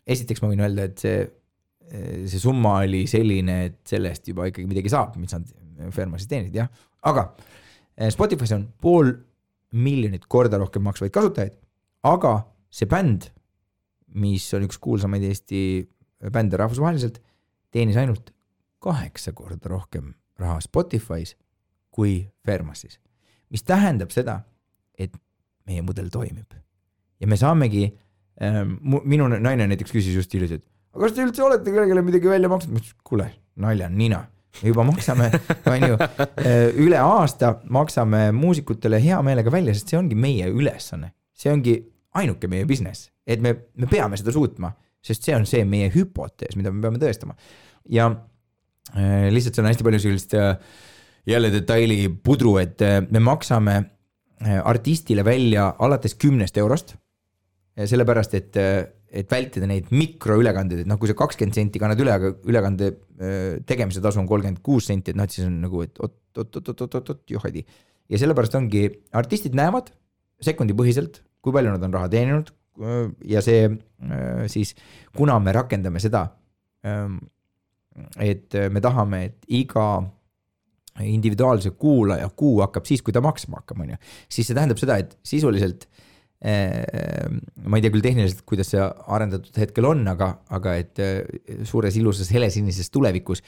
esiteks ma võin öelda, et see summa oli selline, et sellest juba ikkagi midagi saab, mis nad Fermasis teenid, jah. Aga Spotify's on 500,000 korda rohkem maksvaid kasutajaid, aga see bänd, mis on üks kuulsamaid Eesti bände rahvusvaheliselt, teenis ainult 8 korda rohkem raha Spotify's kui Fermasis. Mis tähendab seda, et meie mudel toimib. Ja me saamegi, minu naine näiteks küsis just hiljuti, et aga kas te üldse olete kellelegi midagi välja maksnud? Ma ütlesin, kuule, nalja nina. Me juba maksame, üle aasta maksame muusikutele hea meelega välja, sest see ongi meie ülesanne. See ongi ainuke meie business, et me peame seda suutma, sest see on see meie hüpotees, mida me peame tõestama. Ja lihtsalt see on hästi palju sellist jälle detaili pudru, et me maksame artistile välja alates 10 eurost, sellepärast, et vältida neid mikroülekandeid, et kui see 20 senti kannad üle, aga ülekande tegemise tasu on 36 senti, et siis on nagu, et oot, johadi. Ja sellepärast ongi, artistid näevad sekundi põhiselt, kui palju nad on raha teeninud ja see siis, kuna me rakendame seda, et me tahame, et iga individuaalse kuulaja kuu hakkab siis, kui ta maksma hakkab, siis see tähendab seda, et sisuliselt ma ei tea küll tehniliselt, kuidas see arendatud hetkel on, aga et suures ilusas helesinises tulevikus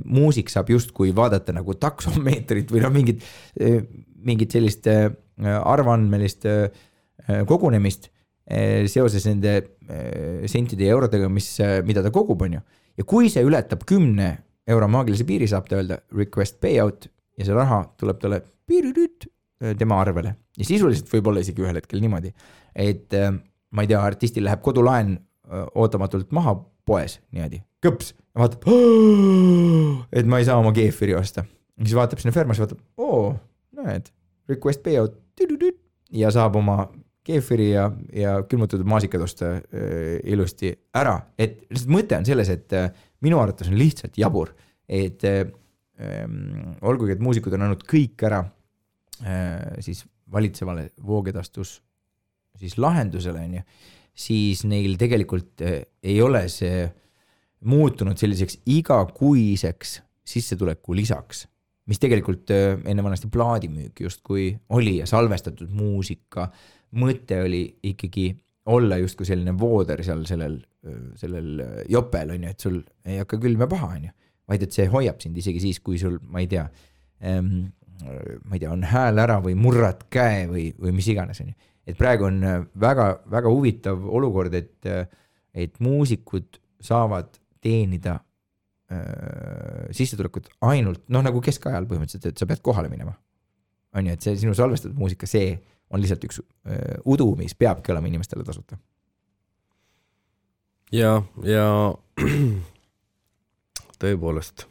muusik saab justkui vaadata nagu taksomeetrit või mingit sellist arvandmelist kogunemist seoses nende sentide ja eurodega, mida ta kogub, on ju. Ja kui see ületab 10 euro maagilise piiri, saab ta öelda request payout ja see raha tuleb talle tema arvele. Ja sisuliselt võib olla isegi ühel hetkel niimoodi, et ma ei tea, artistil läheb kodulaen ootamatult maha poes niimoodi, kõps, ja vaatab, et ma ei saa oma keefiri osta. Ja siis vaatab sinna Fermas ja vaatab, näed, request payout ja saab oma keefiri ja külmutatud maasikad osta ilusti ära. Et mõte on selles, et minu arvates on lihtsalt jabur, et olgugi, et muusikud on andnud kõik ära siis valitsevale voogedastus siis lahendusele, siis neil tegelikult ei ole see muutunud selliseks igakuiseks sissetuleku lisaks, mis tegelikult enne vanasti plaadimüük justkui oli ja salvestatud muusika mõte oli ikkagi olla justkui selline vooder seal sellel jopel, on ju, et sul ei hakka külm ja paha, on ju, vaid et see hoiab sind isegi siis, kui sul, ma ei tea, on hääl ära või murrad käe või mis iganes, on ju. Et praegu on väga, väga huvitav olukord, et muusikud saavad teenida sissetulekut ainult, nagu keskajal põhimõtteliselt, et sa pead kohale minema. On ju, et see sinu salvestatud muusika, see on lihtsalt üks udu, mis peabki olema inimestele tasuta. Ja tõepoolest,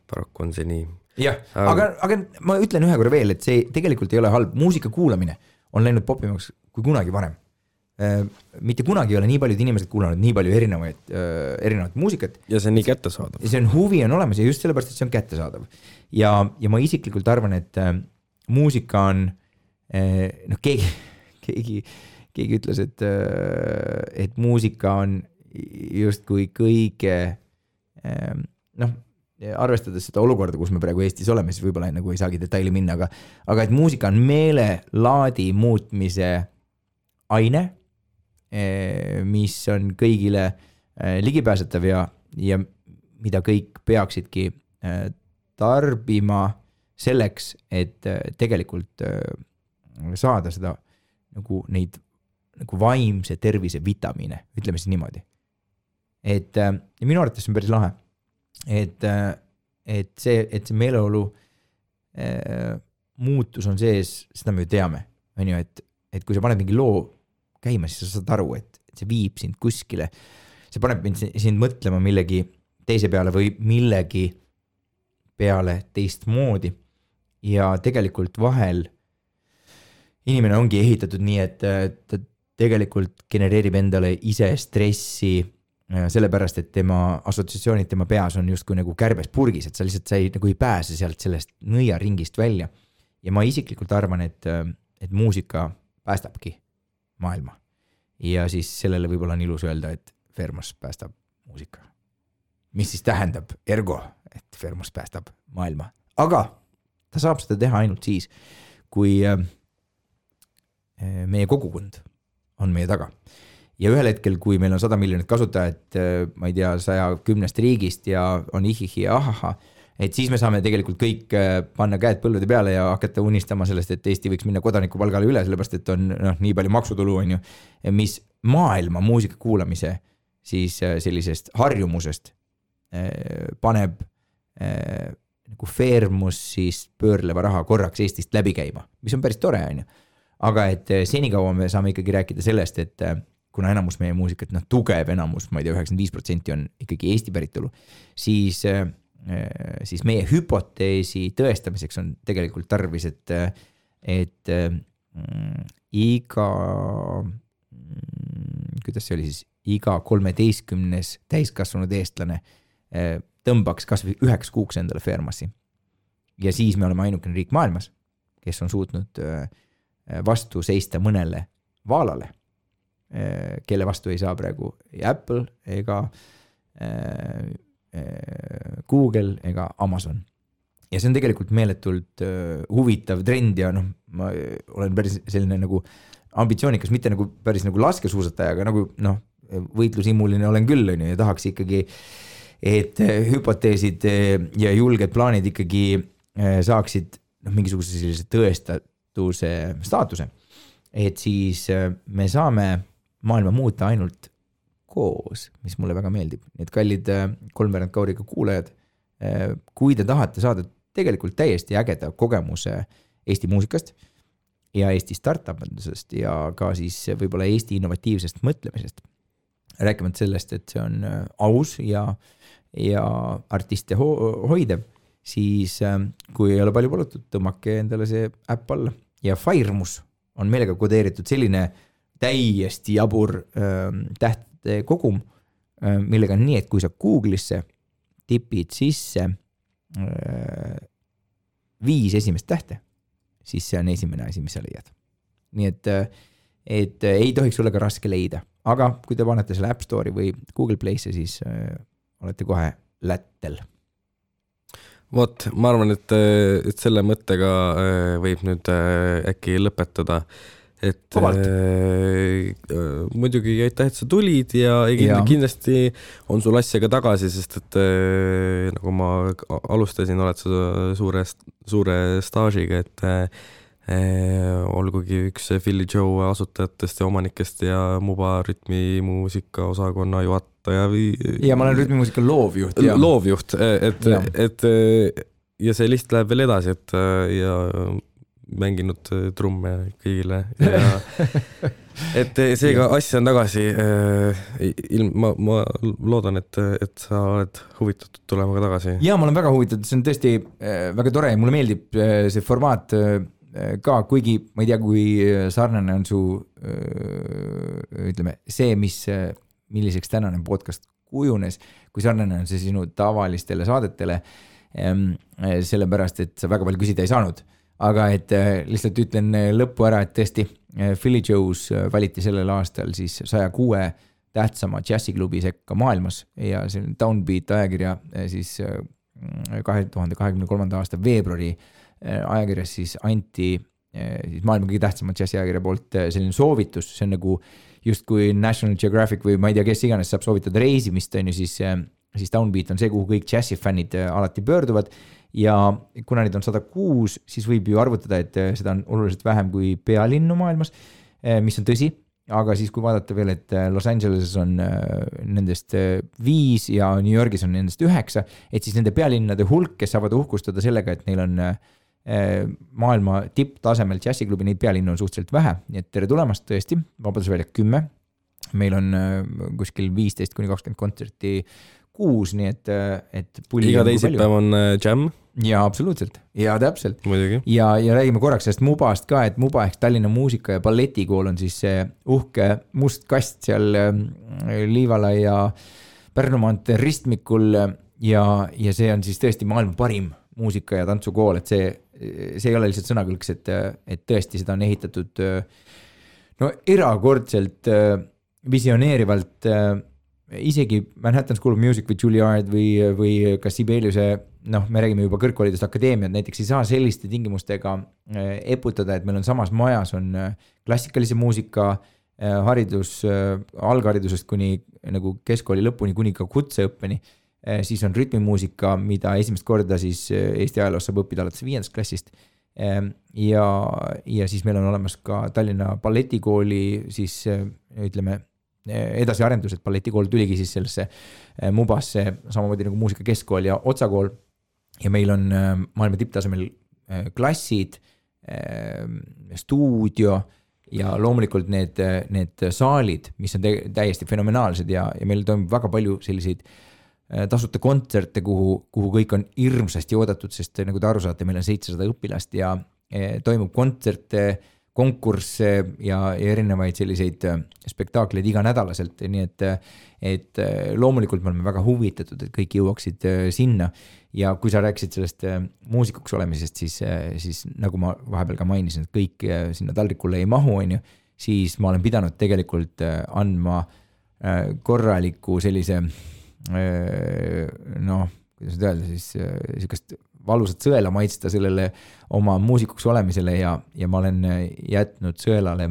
paraku on see nii. Jah, aga ma ütlen ühe korra veel, et see tegelikult ei ole halb. Muusika kuulamine on läinud popimaks kui kunagi varem. Mitte kunagi ei ole nii paljud inimesed kuulanud nii palju erinevat muusikat. Ja see on nii kättesaadav. See on huvi on olemas ja just sellepärast, et see on kättesaadav. Ja ma isiklikult arvan, et muusika on, keegi ütles, et muusika on justkui kõige, arvestades seda olukorda, kus me praegu Eestis oleme, siis võib-olla nagu ei saagi detaili minna, aga et muusika on meelelaadi muutmise aine, mis on kõigile ligipääsetav ja mida kõik peaksidki tarbima selleks, et tegelikult saada seda nagu neid nagu vaimse tervise vitamiine, ütleme siis niimoodi. Et minu arvates on päris lahe. Et see meeleolu muutus on sees, seda me ju teame, on ju, et kui sa paned mingi loo käima, siis sa saad aru, et see viib sind kuskile, see paneb sind mõtlema millegi teise peale või millegi peale teistmoodi ja tegelikult vahel inimene ongi ehitatud nii, et ta tegelikult genereerib endale ise stressi sellepärast, et tema assotsiatsioonid tema peas on justkui nagu kärbes purgis, et sa lihtsalt nagu ei pääse sealt sellest nõiaringist välja. Ja ma isiklikult arvan, et muusika päästabki maailma. Ja siis sellele võib-olla on ilus öelda, et Fermos päästab muusika. Mis siis tähendab ergo, et Fermos päästab maailma. Aga ta saab seda teha ainult siis, kui meie kogukond on meie taga. ja ühel hetkel, kui meil on 100 miljonit kasutajat, ma ei tea, 110 riigist ja on ihihi ja ahaha, et siis me saame tegelikult kõik panna käed põllude peale ja hakata unistama sellest, et Eesti võiks minna kodanikupalgale üle, sellepärast et on nii palju maksutulu, on ju, mis maailma muusika kuulamise siis sellisest harjumusest paneb nagu Fairmus siis pöörleva raha korraks Eestist läbi käima, mis on päris tore, on ju. Aga et senikaua me saame ikkagi rääkida sellest, et kuna enamus meie muusikat, tugev enamus, ma ei tea, 95% on ikkagi Eesti päritolu, siis meie hüpoteesi tõestamiseks on tegelikult tarvis, et iga, kuidas see oli siis, iga 13 täiskasvanud eestlane tõmbaks kas või 9 kuuks endale Fairmassi. Ja siis me oleme ainukene riik maailmas, kes on suutnud vastu seista mõnele vaalale, kelle vastu ei saa praegu ei Apple ega Google ega Amazon. Ja see on tegelikult meeletult huvitav trend ja ma olen päris selline nagu ambitsioonikas, mitte nagu päris nagu laskesuusataja, aga nagu võitlusimuline olen küll ja tahaks ikkagi, et hüpoteesid ja julged plaanid ikkagi saaksid mingisuguse sellise tõestatuse staatuse. Et siis me saame maailma muuta ainult koos, mis mulle väga meeldib. Need kallid kolmveerand kauriga kuulajad, kui te tahate saada tegelikult täiesti ägeda kogemuse Eesti muusikast ja Eesti startup-andusest ja ka siis võib-olla Eesti innovatiivsest mõtlemisest, rääkimata sellest, et see on aus ja artiste hoidev, siis kui ei ole palju palutud, tõmmake endale see äpp alla. Ja Fairmus on meelega kodeeritud selline täiesti jabur tähtede kogum, millega on nii, et kui sa Google'isse tipid sisse 5 esimest tähte, siis see on esimene asi, mis sa leiad. Nii et ei tohiks olla ka raske leida, aga kui te panete selle App Store'i või Google Play'sse, siis olete kohe lättel. Vot, ma arvan, et selle mõttega võib nüüd äkki lõpetada. Et muidugi aitäh, et sa tulid ja kindlasti on sul asja ka tagasi, sest et nagu ma alustasin, oled sa suure staažiga, et olgugi üks Philly Joe asutajatest ja omanikest ja Muba rütmimuusika osakonna juhataja ja ma olen rütmimuusika loovjuht. Loovjuht, et ja see list läheb veel edasi, et ja mänginud trumme kõigile ja et seega asja on tagasi. Ma loodan, et sa oled huvitatud tulema ka tagasi. Ja ma olen väga huvitatud, see on tõesti väga tore ja mulle meeldib see formaat ka, kuigi ma ei tea, kui sarnane on su ütleme, see, milliseks tänane podcast kujunes, kui sarnane on see sinu tavalistele saadetele, sellepärast, et sa väga palju küsida ei saanud. Aga et lihtsalt ütlen lõppu ära, et tõesti Philly Joe's valiti sellel aastal siis 106 tähtsama džässiklubi sekka maailmas ja see Downbeat ajakirja siis 2023. aasta veebruari ajakirjas siis anti siis maailma kõige tähtsama džässiajakirja poolt selline soovitus, see on nagu just kui National Geographic või ma ei tea, kes iganes saab soovitada reisimist, on ju siis Downbeat on see, kuhu kõik džässifännid alati pöörduvad. Ja kuna neid on 106, siis võib ju arvutada, et seda on oluliselt vähem kui pealinnu maailmas, mis on tõsi, aga siis kui vaadata veel, et Los Angeleses on nendest 5 ja New Yorgis on nendest 9, et siis nende pealinnade hulk, kes saavad uhkustada sellega, et neil on maailma tipptasemel džässiklubi, neid pealinnu on suhteliselt vähe, nii et tere tulemast tõesti, Vabadusväljak 10, meil on kuskil 15-20 kontserti kuus, nii et iga teisipäev on jam. Ja absoluutselt, ja täpselt. Muidugi. Ja räägime korraks sellest Mubast ka, et Muba ehk Tallinna muusika- ja balletikool on siis see uhke must kast seal Liivala ja Pärnu maantee ristmikul ja see on siis tõesti maailma parim muusika- ja tantsukool, et see ei ole lihtsalt sõnakõlks, et tõesti seda on ehitatud erakordselt visioneerivalt isegi Manhattan School of Music või Juilliard või ka Sibeliuse, me räägime juba kõrgkoolidest akadeemiad, näiteks ei saa selliste tingimustega eputada, et meil on samas majas on klassikalise muusika haridus algharidusest kuni nagu keskkooli lõpuni, kuni ka kutseõppeni, siis on rütmimuusika, mida esimest korda siis Eesti ajaloos saab õppida alates 5. klassist. Ja siis meil on olemas ka Tallinna balletikooli siis ütleme edasiarendused, balletikool tuligi siis sellesse Mubasse samamoodi nagu muusikakeskkool ja Otsakool ja meil on maailma tipptasemel klassid, stuudio ja loomulikult need saalid, mis on täiesti fenomenaalsed ja meil toimub väga palju selliseid tasuta kontserte, kuhu kõik on hirmsasti oodatud, sest nagu te aru saate, meil on 700 õpilast ja toimub kontserte, konkursse ja erinevaid selliseid spektaakleid iga nädalaselt, nii et loomulikult me oleme väga huvitatud, et kõik jõuaksid sinna ja kui sa rääkisid sellest muusikuks olemisest, siis nagu ma vahepeal ka mainisin, et kõik sinna taldrikule ei mahu, on ju, siis ma olen pidanud tegelikult andma korraliku sellise kuidas öelda siis sellist valusat sõela maitsta sellele oma muusikuks olemisele ja ma olen jätnud sõelale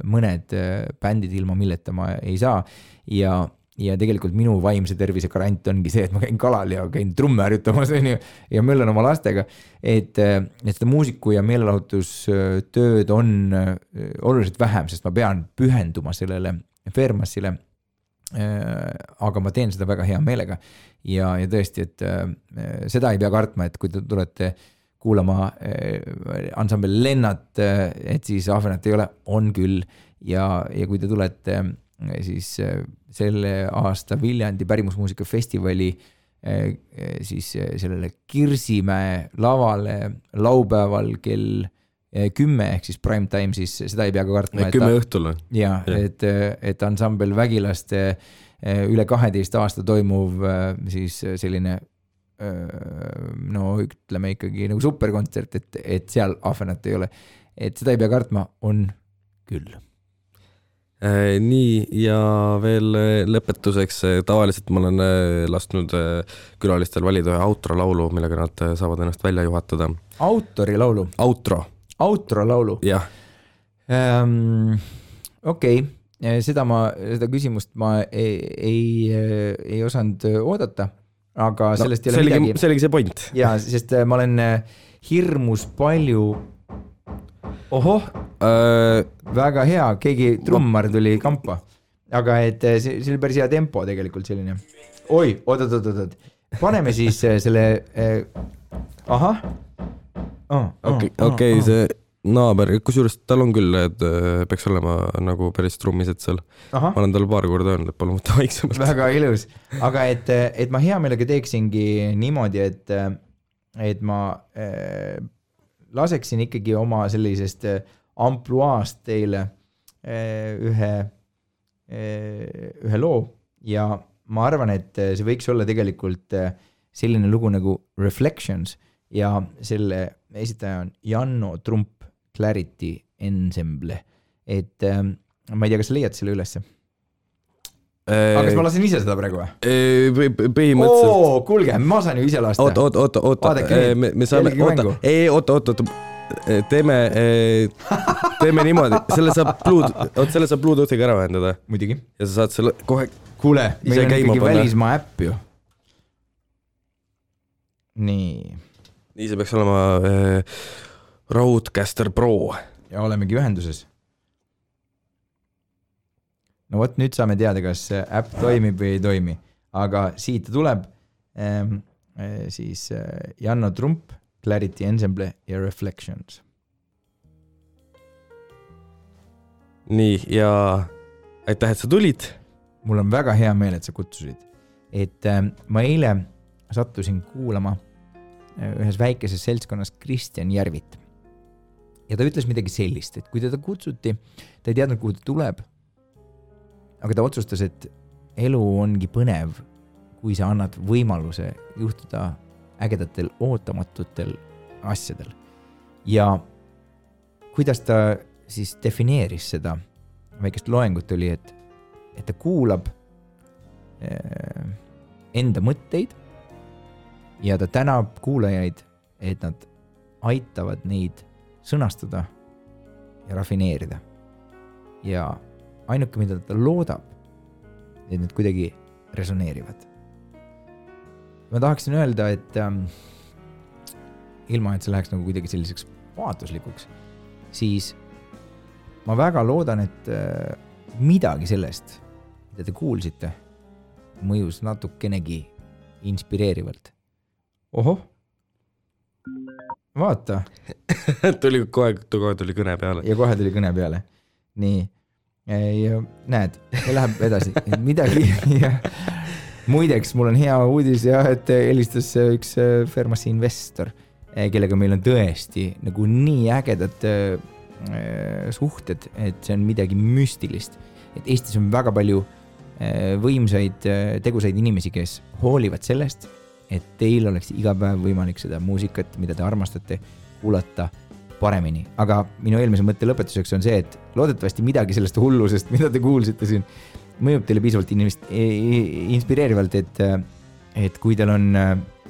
mõned bändid ilma milleta ma ei saa ja tegelikult minu vaimse tervise garant ongi see, et ma käin kalal ja käin trumme harjutamas ja möllan oma lastega, et seda muusiku ja meelelahutustööd on oluliselt vähem, sest ma pean pühenduma sellele Fairmassile, aga ma teen seda väga hea meelega ja tõesti, et seda ei pea kartma, et kui te tulete kuulama ansambel Lennart, et siis Ahvenat ei ole, on küll ja kui te tulete siis selle aasta Viljandi pärimusmuusikafestivali siis sellele Kirsimäe lavale laupäeval kell 10 ehk siis prime time, siis seda ei pea ka kartma. 10 õhtul. Ja, et ansambel Vägilaste üle 12 aasta toimuv siis selline no ütleme ikkagi nagu superkontsert, et seal Ahvenat ei ole. Et seda ei pea kartma, on küll. Nii ja veel lõpetuseks, tavaliselt ma olen lasknud külalistel valida ühe outro laulu, millega nad saavad ennast välja juhatada. Autori laulu? Outro laulu? Jah. Okei, seda küsimust ma ei osanud oodata, aga sellest ei ole midagi. See oligi see point. Ja, sest ma olen hirmus palju väga hea, keegi trummar tuli kampa, aga et see oli päris hea tempo tegelikult selline. Oi, oot. Paneme siis selle Okei, see naaber, kusjuures tal on küll, et peaks olema nagu päris trummised seal. Ma olen tal paar korda öelnud, et palun võtta vaiksemalt. Väga ilus, aga et ma hea meelega teeksingi niimoodi, et ma laseksin ikkagi oma sellisest ampluaast teile ühe loo ja ma arvan, et see võiks olla tegelikult selline lugu nagu Reflections ja selle esitaja on Janno Trump Clarity Ensemble, et ma ei tea, kas sa leiad selle ülesse? Aga kas ma lasen ise seda praegu või? Põhimõtteliselt. Kuulge, ma saan ju ise lasta. Oota. Me saame, teeme niimoodi, selle saab Bluetoothiga ära vähendada. Muidugi. Ja sa saad selle kohe. Kuule, meil on ikkagi välismaa äpp ju. Nii see peaks olema Roadcaster Pro. Ja olemegi ühenduses. No võt, nüüd saame teada, kas äpp toimib või ei toimi. Aga siit tuleb siis Janno Trump, Clarity Ensemble ja Reflections. Nii, ja aitäh, et sa tulid. Mul on väga hea meel, et sa kutsusid. Et ma eile sattusin kuulama ühes väikeses seltskonnas Kristjan Järvit. Ja ta ütles midagi sellist, et kui teda kutsuti, ta ei teadnud, kuhu ta tuleb, aga ta otsustas, et elu ongi põnev, kui sa annad võimaluse juhtuda ägedatel, ootamatutel asjadel. Ja kuidas ta siis defineeris seda väikest loengut oli, et ta kuulab enda mõtteid ja ta tänab kuulajaid, et nad aitavad neid sõnastada ja rafineerida. Ja ainuke, mida ta loodab, et need kuidagi resoneerivad. Ma tahaksin öelda, et ilma, et see läheks nagu kuidagi selliseks vaatuslikuks, siis ma väga loodan, et midagi sellest, mida te kuulsite, mõjus natukenegi inspireerivalt. Ohoh, vaata. kohe tuli kõne peale. Ja kohe tuli kõne peale. Nii, ja näed, läheb edasi. Midagi. Ja muideks, mul on hea uudis, et helistas üks Fermasi investor, kellega meil on tõesti nagu nii ägedad suhted, et see on midagi müstilist. Et Eestis on väga palju võimsaid, tegusaid inimesi, kes hoolivad sellest, et teil oleks iga päev võimalik seda muusikat, mida te armastate, kuulata paremini. Aga minu eelmise mõtte lõpetuseks on see, et loodetavasti midagi sellest hullusest, mida te kuulsite siin, mõjub teile piisavalt inspireerivalt, et kui teil on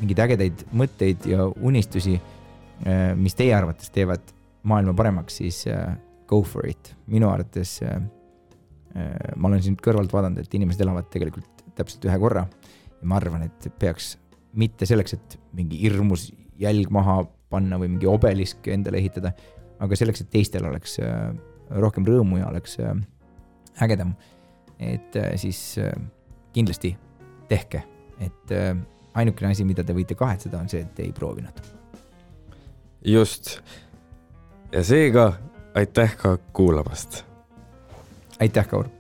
mingid ägedaid mõtteid ja unistusi, mis teie arvates teevad maailma paremaks, siis go for it. Minu arvates ma olen siin kõrvalt vaadanud, et inimesed elavad tegelikult täpselt ühe korra ja ma arvan, et peaks mitte selleks, et mingi hirmus jälg maha panna või mingi obelisk endale ehitada, aga selleks, et teistel oleks rohkem rõõmu ja oleks ägedam. Et siis kindlasti tehke, et ainukene asi, mida te võite kahetseda, on see, et te ei proovinud. Just. Ja seega aitäh ka kuulamast. Aitäh, Kaur!